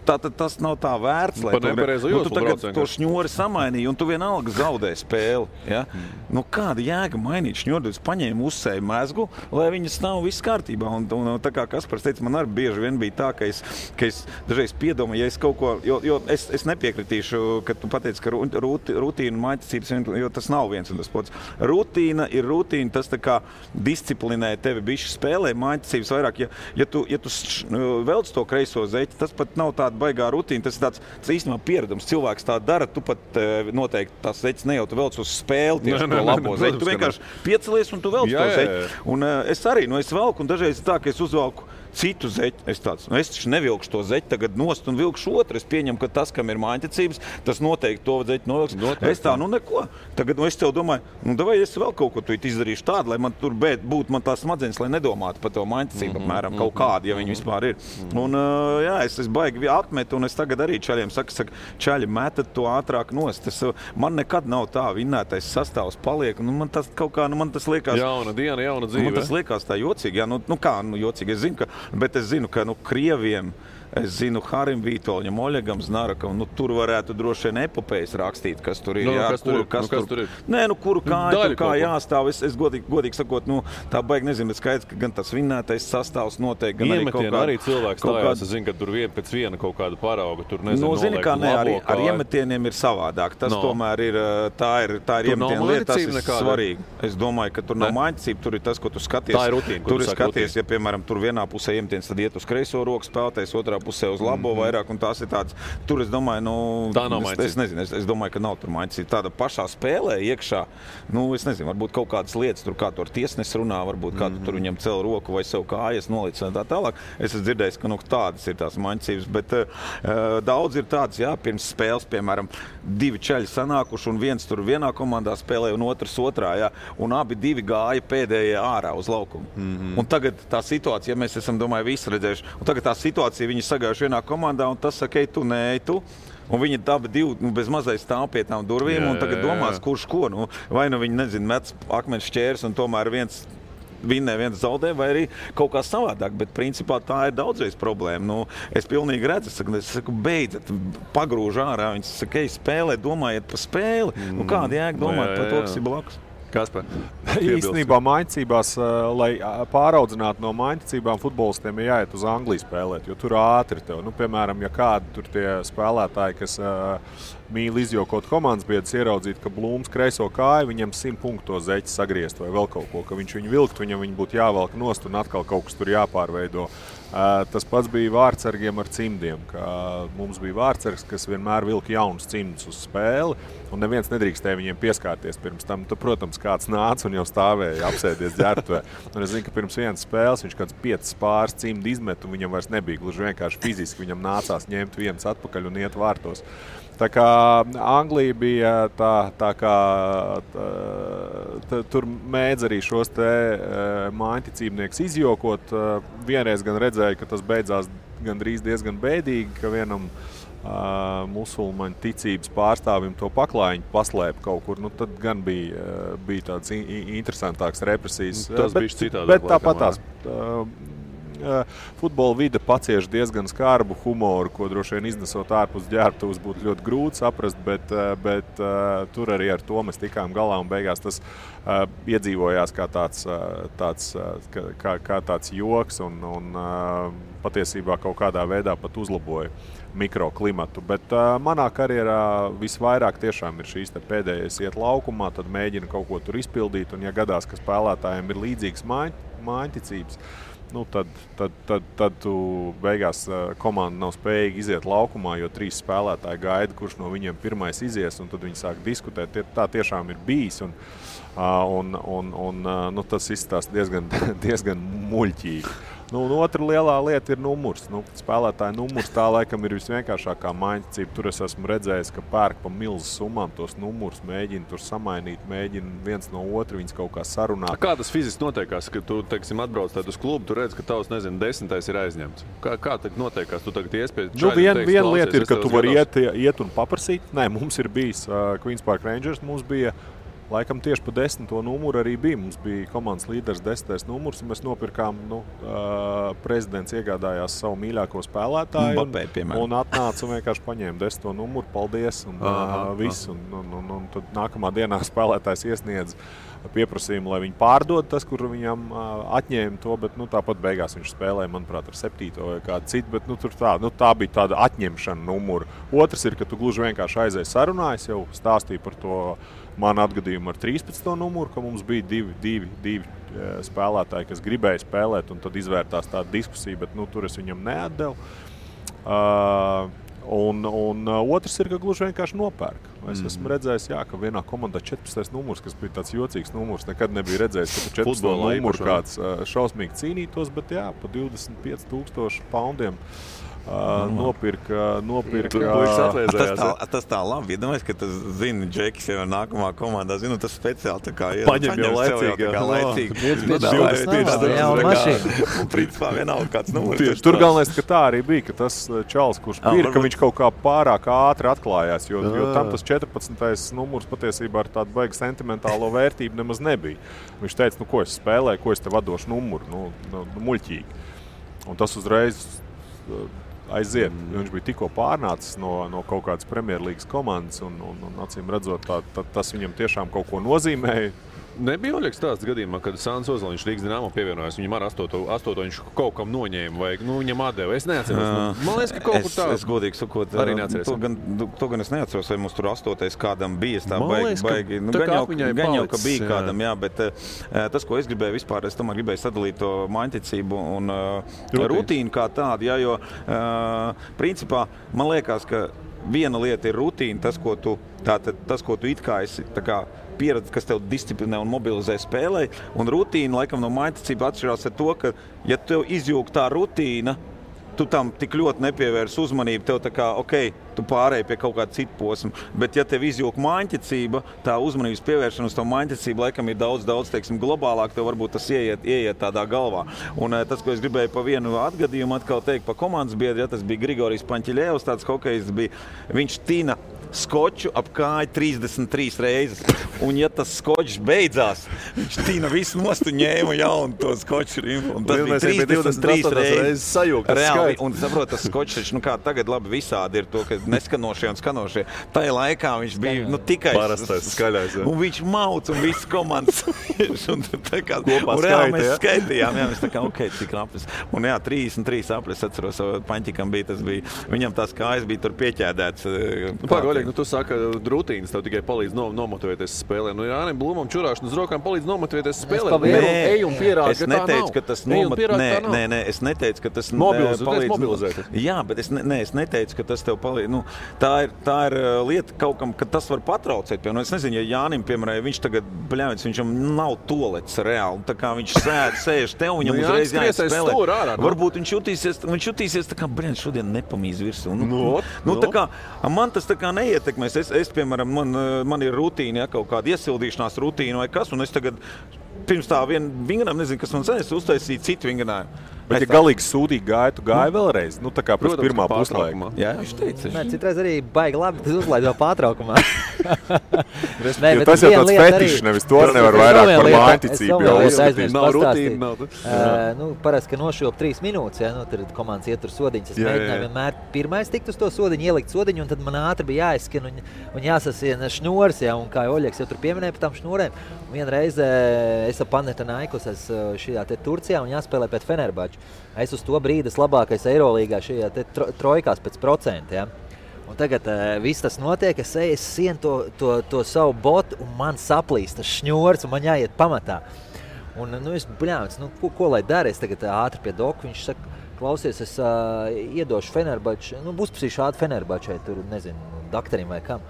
Tātad tas nav tā vērts, lai tu tagad to šņori samainīji, un tu vienalga zaudē spēli. Ja? Kāda jēga mainīt šņori? Es paņēmu uzsēju mezgu, lai viņas nav viss kārtībā. Un tā kā Kaspars teica, man arī bieži vien bija tā, ka es dažreiz piedomāju, ja es kaut ko, jo es nepiekritīšu, ka tu pateici, ka rutīna un maiticības, jo tas nav viens un tas pats. Rutīna ir rutīna, tas tā kā disciplinē tevi bišķi spēlē, maiticības vairāk. Ja tu velc to kreiso zeķi, tas pat nav tāda baigā rutīna, tas ir tāds īstenībā pieredums. Cilvēks tā dara, tu pat noteikti tās zeķis ne jau tu velc uz spēli tieši to labo zeķi. Tu vienkārši piecelies un tu velc to zeķi. Un es arī, es velku un dažreiz tā, ka es uzvelku citu zeķi. Es taču nevilkšu to zeķi tagad nost un vilkšu otru. Es pieņemu, ka tas, kam ir mājticības, tas noteikti to zeķi novilks. Es tā, neko. Tagad es tev domāju, davai es vēl kaut ko tu izdarīšu tādu, lai man tur būtu man tās smadzenes, lai nedomātu par to mājticību apmēram kaut kādu, ja viņi vispār ir. Un es baigi atmetu, un es tagad arī čaļiem saku, čaļi metat to ātrāk nost. Man nekad nav tā vinnētais sastāvs paliek, un man tas kaut kā, man tas liekas... Jauna diena, jauna dzīve. Man tas liekas tā jocīgi, jā, jocīgi, es zinu, bet es zinu, ka Krieviem, es zinu Harim Vītoļam, Oļegam Znarakam, tur varētu droši vien epopējas rakstīt, kas tur ir. Kas tur ir? Nē, kuru kāju, kā jāstāv. Es godīgi sakot, tā baigi nezinu, bet skaidrs, ka gan tas vinnētais sastāvs noteikti, gan arī kaut kā... arī cilvēks stājās, es zinu, ka tur pēc viena kaut kāda parauga, tur nezinu, zini, kā ne, ar iemetieniem ir savādāk. Tas tomēr ir, tā ir iemetiena lieta, tas ir svarīgi. Es domāju, ka tur nav maiticība, tur ir tas, ko tu skaties. Tā ir rutīna, tur skaties, ja, piemēram, tur vienā pusē iemetiens, tad iet uz kreiso roku spēlētājs, otrā pusē uz labo vairāk, un tās ir tādas, tur es domāju, tā nav maiņas. Es nezinu, es domāju, ka nav tur maiņas. Tāda pašā spēlē iekšā, es nezinu, varbūt kaut kādas lietas, tur kā tur tiesnes runā, varbūt kā tur viņam cel roku vai sev kājas nolic un tā tālāk. Es esmu dzirdējis, ka tādas ir tās maiņcības, bet daudz ir tādas, pirms spēles, piemēram, 2 čaļi sanākuši, un viens tur vienā komandā spēlē, un otrs otrā, un abi 2 gāja pēdējie ārā uz laukumu. Un tagad tā situācija, mēs esam, domāju, visi redzējuši, un tagad tā situācija, viņi sagājuši vienā komandā, un tas saka, tu, nē, tu. Un viņi abi 2 bez mazai stāv pie tām durvīm, un tagad domās, kurš ko. Vai viņi, nezinu, met akmens šķērs, un tomēr viens vinnē, viens zaudē, vai arī kaut kā savādāk, bet principā tā ir daudzreiz problēma. Es pilnīgi redzu, es saku, beidzat, pagrūž ārā, viņi saka, spēlē, domājiet par spēli. Kāda jēga domāt par to, kas ir blakus? Kaspar? Īstenībā maiņcībās, lai pāraudzinātu no maiņcībām, futbolistiem ir jāiet uz Angliju spēlēt, jo tur ātri tev. Piemēram, ja kādi tur tie spēlētāji, kas mīl izjokot komandas biedrus, ieraudzīt, ka Blūms kreiso kāju, viņam 100 punktu zeķi sagriezt vai vēl kaut ko, ka viņš viņu vilkt, viņam būtu jāvelk nost un atkal kaut kas tur jāpārveido. Tas pats bija vārtsargiem ar cimdiem, ka mums bija vārtsargs, kas vienmēr vilka jaunus cimdus uz spēli, un neviens nedrīkstēja viņiem pieskārties pirms tam. Tad, protams, kāds nāca un jau stāvēja apsēdies ģērbtuvē. Un es zinu, ka pirms vienas spēles viņš kāds 5 pāris cimdi izmet, un viņam vairs nebija gluži vienkārši fiziski. Viņam nācās ņemt viens atpakaļ un iet vārtos. Tā kā Anglija bija tā kā tur mēdz arī šos te maiņticībnieks izjokot. Vienreiz gan redzēju, ka tas beidzās gandrīz diezgan bēdīgi, ka vienam musulmaņu ticības pārstāvim to paklājiņu paslēpa kaut kur. Tad gan bija tāds interesantāks represijas. Tas bija citādāk. Bet tāpat tās. Futbola vide pacieš diezgan skarbu humoru, ko droši vien iznesot ārpus ģērbtuves būtu ļoti grūti saprast, bet tur arī ar to mēs tikām galā un beigās tas iedzīvojās kā tāds joks un patiesībā kaut kādā veidā pat uzlaboja mikroklimatu. Bet manā karjerā visvairāk tiešām ir šīs pēdējais iet laukumā, tad mēģina kaut ko tur izpildīt, un ja gadās, ka spēlētājiem ir līdzīgas maiņticības, tad tu beigās komanda nav spējīga iziet laukumā, jo 3 spēlētāji gaida, kurš no viņiem pirmais izies, un tad viņi sāk diskutēt. Tā tiešām ir bijis, un tas izstāsta diezgan muļķīgi. Otra lielā lieta ir numurs. Spēlētāja numurs tā laikam ir visvienkāršākā maiņticība. Tur es esmu redzējis, ka pērk pa milzu summām tos numurus, mēģina tur samainīt, mēģina viens no otru viņus kaut kā sarunāt. Kā tas fiziski notiekās, ka tu, teiksim, atbrauc uz klubu, tu redz, ka tavs, 10. ir aizņemts? Kā tagad notiekās? Tu tagad iespējas čaļi? Viena lieta ir, ka tu vari iet un paprasīt. Nē, mums ir bijis Queens Park Rangers, mums bija laikam tieši pa 10. numuru arī bija. Mums bija komandas līderis 10. numurs, un mēs nopirkām, prezidents iegādājās savu mīļāko spēlētāju un atnāca un vienkārši paņēma 10. numuru, paldies, un viss. Un tad nākamā dienā spēlētājs iesniedz pieprasījumu, lai viņi pārdod tas, kur viņam atņēma to, bet tāpat beigās viņš spēlēja, manuprāt, ar 7. vai kādu citu, bet tā bija tāda atņemšana numuru. Otrs ir, ka tu gluži vienkārši aizēji sarunājas, jau stāstīja par to manu atgadījumu ar 13. numuru, ka mums bija divi spēlētāji, kas gribēja spēlēt, un tad izvērtās tāda diskusija, bet tur es viņam neatdevu. Un otrs ir, ka gluži vienkārši nopērk. Es esmu redzējis, ka vienā komandā 14. numurs, kas bija tāds jocīgs numurs, nekad nebija redzējis, ka 14. numurs kāds šausmīgi cīnītos, bet pa 25,000 poundiem nopirka. Tas tā labi. Iedomājies, ka tas zina, Džekis jau nākamā komandā zina, tas speciāli tā kā paņem jau laicīgi. Principā vienalga kāds numurs. Tur galvenais, ka tā arī bija, ka tas čalis, kurš pirka, viņš kaut kā pārāk ātri atklājās, jo tam tas 14. numurs patiesībā ar tādu baigi sentimentālo vērtību nemaz nebija. Viņš teica, ko es spēlēju, ko es tev atdošu numuru, muļķīgi. Un tas uzreiz aiziet. Viņš bija tikko pārnācis no kaut kādas Premjerlīgas komandas un acīm redzot, tas viņam tiešām kaut ko nozīmēja. Nebija Oļegs tāds gadījumā, kad Sāns Ozoliņš Rīgas Dinamo pievienojās, viņam ar 8. viņš kaut kam noņēma vai viņam atdeva. Es neatceros. Man liekas, ka kaut kur tā. Es godīgi sakot, arī neatceros. To gan es neatceros, vai mums tur 8. kādam bija. Tā baigi. Gan jau, ka bija kādam, jā, bet tas, ko es gribēju vispār, es tomēr gribēju sadalīt to mājticību un rutīnu kā tādu, jā, jo principā man liekas, ka viena lieta ir rutīna, tas, ko tu it kā esi tā kā pieredze, kas tev disciplinē un mobilizē spēlē, un rutīna laikam no mājticība atšķirās ar to, ka ja tev izjūg tā rutīna, tu tam tik ļoti nepievērs uzmanību, tev tā kā, tu pārēji pie kaut kāda cita posma, bet ja tev izjūg mājticība, tā uzmanības pievēršana uz to mājticību laikam ir daudz, teiksim, globālāk, tev varbūt tas ieiet tādā galvā. Un tas, ko es gribēju pa vienu atgadījumu atkal teikt pa komandas biedri, ja tas bija Grigorijs Paņķiļevs, tāds hokejs bija, viņš tina skoču ap kāju 33 reizes. Un ja tas skočs beidzās, viņš tīna visu nost un ņēma jaunu to skoču rimpu. Un tas bija 33 reizes sajūgt. Reāli. Un saprot, tas skočs, kā tagad labi visādi ir to, ka neskanošie un skanošie. Tajā laikā viņš bija tikai parastais skaļais. Un viņš mauc un viss komandas. un reāli mēs skaitījām. Jā, mēs tā kā, cik aplis. Un jā, 33 aplis, atceros, Paņķikam bija, tas bija, viņam tās kājas bija tur pieķēdēts. Tu saki, ka rutīnas tev tikai palīdz nomotivēties spēlē. Jānim Blūmam čurāšana uz rokām palīdz nomotivēties spēlē. Ej un pierādi, ka tā nav. Nē, es neteicu, ka tas mobilizēt. Jā, bet es neteicu, ka tas tev palīdz. Tā ir lieta kaut kam, ka tas var patraucēt. Es nezinu, ja Jānim, piemēram, viņš tagad, viņam nav toalets reāli. Tā kā viņš sēž tev, viņam uzreiz jāspēlē. Varbūt viņš jutīsies tā kā, šodien nepamīz virsū. Tā kā, man tas tā kā neietekmēs. Es piemēram, man ir rutīna, ja, kaut kāda iesildīšanās rutīna vai kas, un es tagad pirms tā vingrinājuma, nezinu, kas man sanēs, uztaisīja citu vingrinājumu. Bet, ja galīgi sūdīgi gāja, tu gāji vēlreiz? Tā kā pēc pirmā puslaika. Jā, viņš teica. Nē, citreiz arī baigi labi, tas uzlaid vēl pārtraukumā. Tas jau tāds fetišs, nevis to nevar vairāk par mājticību jau uzskatīt. Nav rutīna. Parasti, ka nošilp 3 minūtes, ja, tad komandas ietur sodiņas. Es mēģināju vienmēr pirmais tikt uz to sodiņu, ielikt sodiņu, un tad man ātri bija jāizskan un jāsasien šņors, ja, un kā Oļegs jau tur pieminēja par tām šņurēm. Vienreiz es ap Panathinaikos šajā te Turcijā un jāspēlē pēc Fenerbahča. Es uz to brīdi labākais Eirolīgā šajā te trojkās pēc procenta. Ja? Un tagad viss tas notiek, es sienu to savu botu un man saplīst tas šņors un man jāiet pamatā. Un es bļāvis, ko lai dara? Es tagad ātri pie doku, viņš saka, klausies, es iedošu Fenerbahču, būs šādi Fenerbahčai, tur nezinu, dakterim vai kam.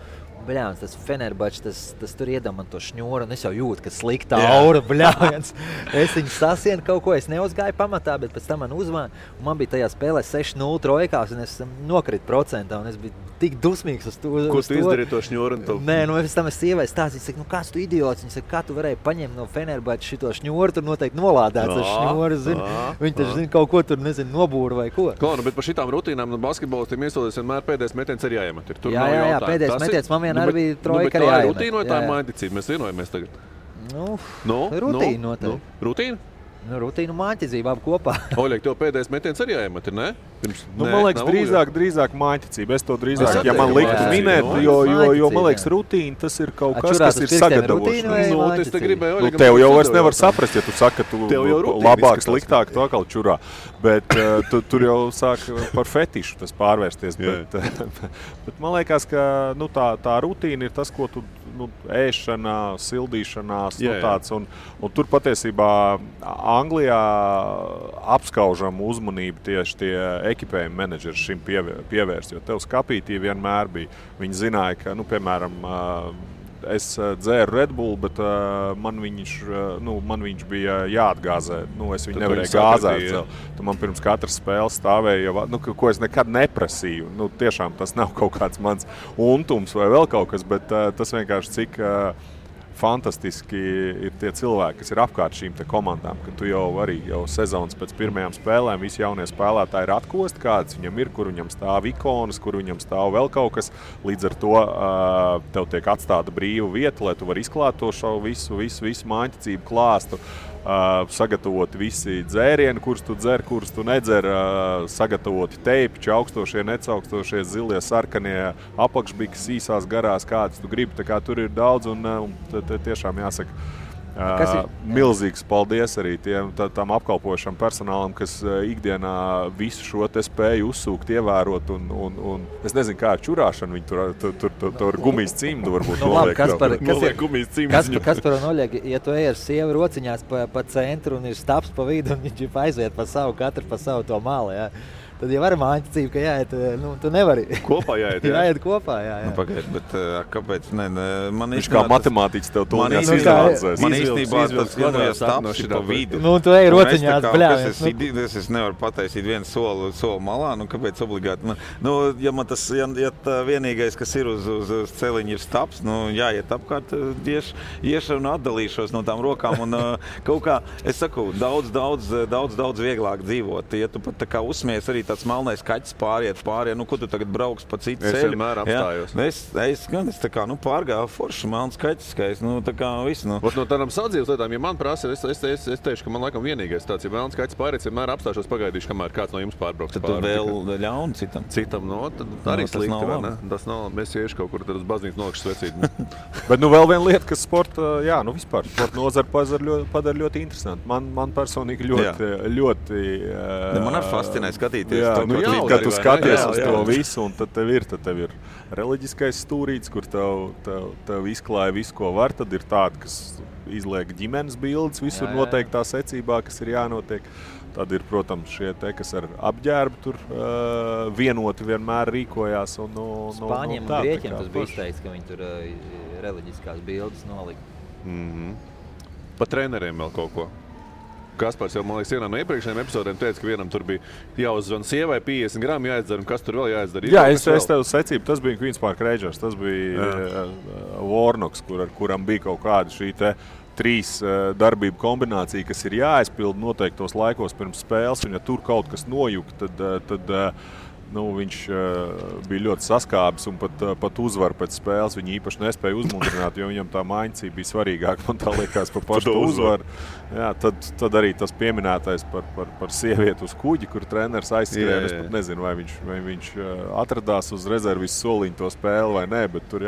Bļāns, tas Fenerbahčs, tas tur iedam man to šņoru, un es jau jūtu, ka slikta aura, bļāns. Es viņu sasienu kaut ko, es neuzgāju pamatā, bet pēc tam man uzvāna. Man bija tajā spēlē 6-0 trojkās, un es nokritu procentā, un es biju tik dusmīgs uz to. Ko tu izdarīji to šņoru? Nē, pēc tam es sievai stāstīju, saka, kāds tu idiots? Viņa saka, kā tu varēji paņemt no Fenerbahča šito šņoru, tur noteikti nolādēts ar šņoru, zini. Viņi taču zina kaut ko tur, nezinu, nobūra vai ko. Bet par šitām rutīnām basketbolistiem iesolēs vienmēr pēdējais metiens ir jāiemet. Jā, pēdējais metiens man vienmēr bija trojka arī jāiemet. Tā ir rutīna vai tā ir mājticība? Mēs vienojamies tagad. Rutīna noteikti. Rutīna? Rutīna un mājticība abi kopā. Oļeg, tev pēdējais metiens arī jāiemet, ne? Man liekas, drīzāk mājticība. Es to drīzāk, ja man liktu minēt, jo man liekas, rutīna tas ir kaut kas, kas ir sagatavošana. Tev jau vairs nevar saprast, ja tu saki, ka tu labāk, sliktāk, tu atkal čurā. Bet tur jau sāk par fetišu tas pārvērsties. Bet man liekas, ka tā rutīna ir tas, ko tu ēšanā, sildīšanās, tāds. Un tur patiesībā Anglijā apskaužam uzmanību tieši tie ekipējuma menedžeri šim pievērst, jo tev skapītī vienmēr bija. Viņi zināja, ka, piemēram, es dzēru Red Bull, bet man viņš bija jāatgāzē. Es viņu nevarēju gāzēt. Tu man pirms katras spēles stāvēja, ko es nekad neprasīju. Tiešām tas nav kaut kāds mans untums vai vēl kaut kas, bet tas vienkārši cik fantastiski ir tie cilvēki, kas ir apkārt šīm te komandām, ka tu jau sezonas pēc pirmajām spēlēm visi jaunie spēlētāji ir atkosti, kāds viņam ir, kur viņam stāv ikonas, kur viņam stāv vēl kaut kas. Līdz ar to tev tiek atstāta brīva vieta, lai tu vari izklāt to šo visu mājticību klāstu. Sagatavoti visi dzērieni, kurus tu dzer, kurus tu nedzer, sagatavoti teipi, augstošie, necaukstošie, zilie, sarkanie, apakšbikas, īsās, garās, kādas tu gribi. Tā kā tur ir daudz un tiešām jāsaka, Milzīgs paldies arī tam apkalpošam personālam, kas ikdienā visu šo te spēju uzsūkt, ievērot. Un es nezinu, kā ar čurāšanu viņi tur gumijas cimdu varbūt noliek. Kaspar un Oļeg, ja tu ej ar sievu rociņās pa centru un ir staps pa vidu un viņš aiziet pa savu, katru pa savu to malu, jā. Tad jau var māņticība, ka jāiet, tu nevari. Kopā jāiet, jā. Jāiet kopā, jā. Pagaid, bet kāpēc? Man viņš kā matemātiķis tev tūlīt izanalizēs. Man īstenībā tas vienojas tapsi pa vidu. Tu ej rociņās, bļāvies. Es nevaru pataisīt vienu soli malā, kāpēc obligāti? Ja man tas, ja vienīgais, kas ir uz celiņa ir staps, jāiet apkārt, iešu un atdalīšos no tām rokām. Un kaut kā, es saku, daudz vieglāk dzīvot. Ja tu pat tā kā uzsmies arī tāds melnais kaķis pāriet, ko tu tagad brauks pa citu ceļu. Es vienmēr apstājos. Es tā kā, pārgāju forši melns kaķis, ka es, tā kā visu. No tādām sadzīves lietām, ja man prasa, es teikšu, ka man laikam vienīgais tāds, ja melns kaķis pāriet, vienmēr apstāšos pagaidīšu, kamēr kāds no jums pārbrauks pāri. Tad tu vēl ļauni citam? Citam, tad arī slikti, vai ne? Tas nav, mēs iešu kaut kur tad uz baznīcu nolikšu svecīt. Bet vēl viena lieta, kas sporta, vispār, sporta nozara padara ļoti interesanti. Man personīgi ļoti man arī fascinē skatīties. Kad tu skaties uz to visu, un tad tev ir reliģiskais stūrīts, kur tev izklāja visu, ko var. Tad ir tādi, kas izliek ģimenes bildes visur noteiktā secībā, kas ir jānotiek. Tad ir, protams, šie kas ar apģērbu tur vienoti vienmēr rīkojās. Spāņiem un Grieķiem tas bija izteikts, ka viņi tur reliģiskās bildes nolika. Pa treneriem vēl kaut ko. Kaspars jau, man liekas, vienā no iepriekšējiem epizodēm teica, ka vienam tur bija jāuzzvan sievai 50 gramu jāizdara, un kas tur vēl jāizdara? Jā, es tev secību, tas bija Queen's Park Rangers, tas bija Warnocks, kuram bija kaut kāda šī te 3 darbību kombinācija, kas ir jāizpild noteiktos laikos pirms spēles, un ja tur kaut kas nojuk, tad viņš bija ļoti saskābis un pat uzvaru pēc spēles. Viņi īpaši nespēja uzmundrināt, jo viņam tā māņcība bija svarīgāk. Man tā liekas par pašu uzvaru. Jā, tad arī tas pieminētais par sievieti uz kuģi, kur treneris aizskrēja. Es pat nezinu, vai viņš atradās uz rezervis soliņu to spēli vai nē, bet tur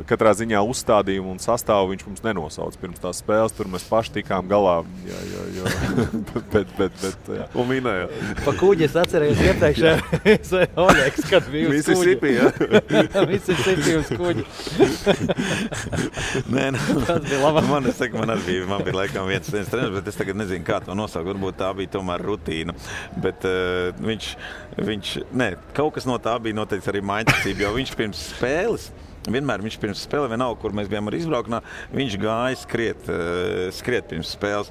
katrā ziņā uzstādījumu un sastāvu viņš mums nenosauc pirms tās spēles. Tur mēs paši tikām galā. Bet un minēja. Pa kuģi es atcerējos iepriekšējais Oļegs, kad bija uz kuģi. Mississippi uz kuģi. Nē, tas bija labāk. Man bija laikam viens treneris, bet es tagad nezinu, kā to nosaukt. Varbūt tā bija tomēr rutīna. Bet kaut kas no tā bija noteikti arī māņticība, jo viņš pirms spēles vienalga, kur mēs bijām ar izbraukšanā, viņš gāja skriet pirms spēles.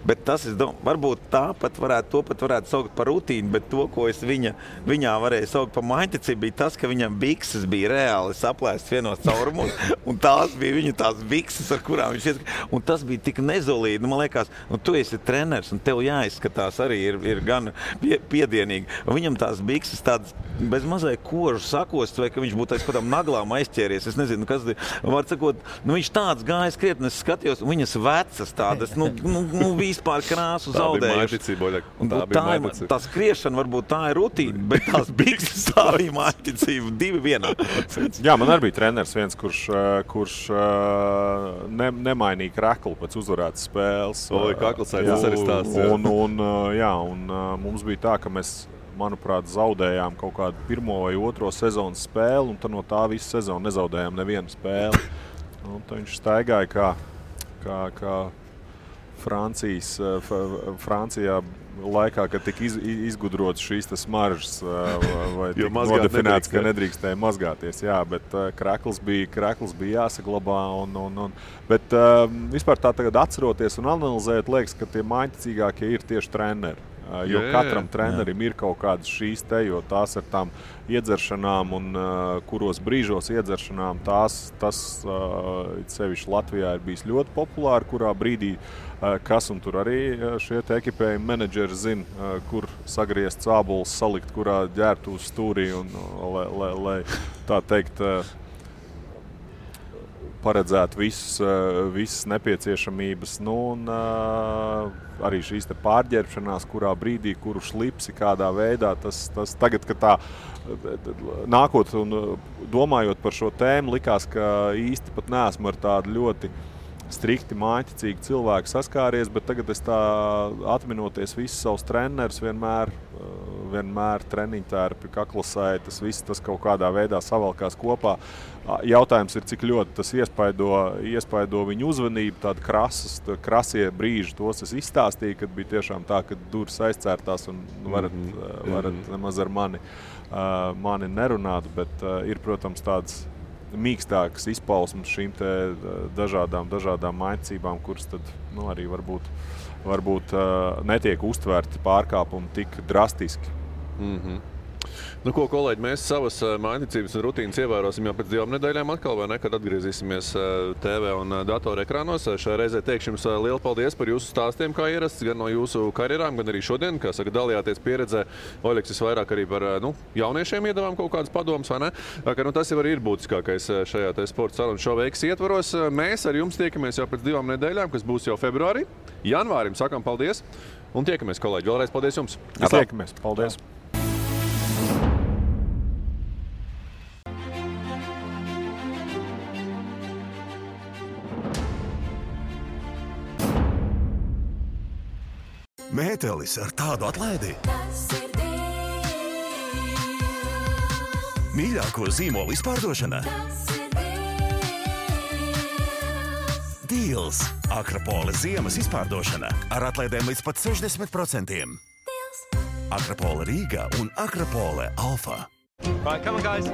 Bet tas, es domāju, varbūt to pat varētu saukt par rutīnu, bet to, ko es viņā varēju saukt par māņticību, bija tas, ka viņam bikses bija reāli saplēstas vienos caurumos, un tās bija viņa tās bikses, ar kurām viņš ieskrēja. Un tas bija tik nezolīdi. Man liekas, tu esi treneris, un tev jāizskatās arī ir gan piedienīgi. Un viņam tās bikses tādas bez mazai kožu sakost, vai ka viņš būtu aiz kādām naglām aizķēries. Es nezinu, kas var sakot, viņš tāds gāja skriet, un es skatījos, un viņas vecas tādas, vispār krāsu zaudējuši. Tā skriešana varbūt tā ir rutīna, bet tās bikses tā bija māņticība 2 vienā. Jā, man arī bija treneris viens, kurš nemainīja kreklu pēc uzvarētas spēles. Tas arī stāsts. Un mums bija tā, ka mēs, manuprāt, zaudējām kaut kādu 1. vai 2. sezonas spēli, un tad no tā visu sezonu nezaudējām nevienu spēli. Tad viņš staigāja kā Francijā laikā, kad tika izgudrots šīs smaržas vai nodefinēts, ka nedrīkstēja mazgāties. Jā, bet krekls bija jāsaglabā. Bet vispār tā tagad atceroties un analizējot, liekas, ka tie māņticīgākie ir tieši treneri. Jo katram trenerim ir kaut kādas šīs te, jo tās ar tām iedzeršanām un kuros brīžos iedzeršanām tas sevišķi Latvijā ir bijis ļoti populāri, kurā brīdī kas un tur arī šie ekipējumi menedžeri zina, kur sagriezt cābulis, salikt, kurā ģērt uz stūrī un lai tā teikt paredzēt visas nepieciešamības, arī šīs te pārģērbšanās, kurā brīdī, kuru šlipsi, kādā veidā, tas tagad, ka tā nākot un domājot par šo tēmu, likās, ka īsti pat neesmu ar tādu ļoti strikti mājiņticīgi cilvēki saskāries, bet tagad es tā atminoties visus savus trenerus vienmēr treniņu tērpi, kaklasēji, tas kaut kādā veidā savalkās kopā. Jautājums ir, cik ļoti tas iespaido viņu uzmanību, tādi krasie brīži, tos es izstāstīju, kad bija tiešām tā, ka durvis aizcērtās un varat nemaz ar mani nerunāt, bet ir, protams, tāds mīkstākas izpausmes šīm te dažādām mājiņcībām, kuras tad arī varbūt netiek uztvērti pārkāpumi tik drastiski. Nu, ko, kolēģi, mēs savas mājiņticības un rutīnas ievērosim jau pēc 2 nedēļām atkal, vai ne, kad atgriezīsimies TV un datorekrānos. Šajā reizē teikšu jums lielu paldies par jūsu stāstiem, kā ierasts, gan no jūsu karjerām, gan arī šodien, kā saka, dalījāties pieredzē. Oļeks, visvairāk arī par jauniešiem iedavām kaut kādas padomas, vai ne? Ka, tas jau arī ir būtiskākais šajā sporta sarunu šova X ietvaros. Mēs ar jums tiekamies jau pēc 2 nedēļām, kas būs jau februārī. Janvārim sakam paldies un tiekamies, kolēģi. Vēlreiz paldies jums. Tiekamies. Paldies. Mētelis ar tādu atlaidi. Mīļāko zīmolu izpārdošana. Deals. Akrapola ziemas izpārdošana ar atlaidēm līdz pat 60%. Akrapola Rīga un Akrapola Alfa. Right, come on, guys.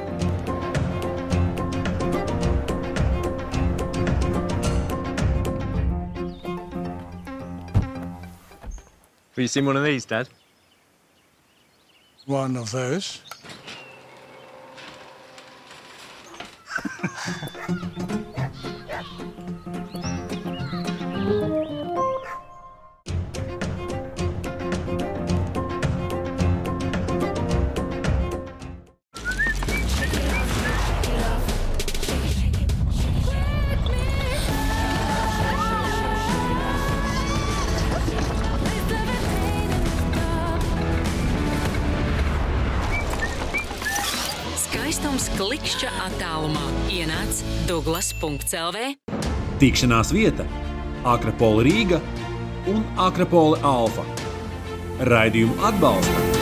Have you seen one of these, Dad? One of those. Klikšķa attālumā ienāc Douglas.lv. Tikšanās vieta Akrapola Rīga un Akrapola Alfa. Raidījumu atbalsta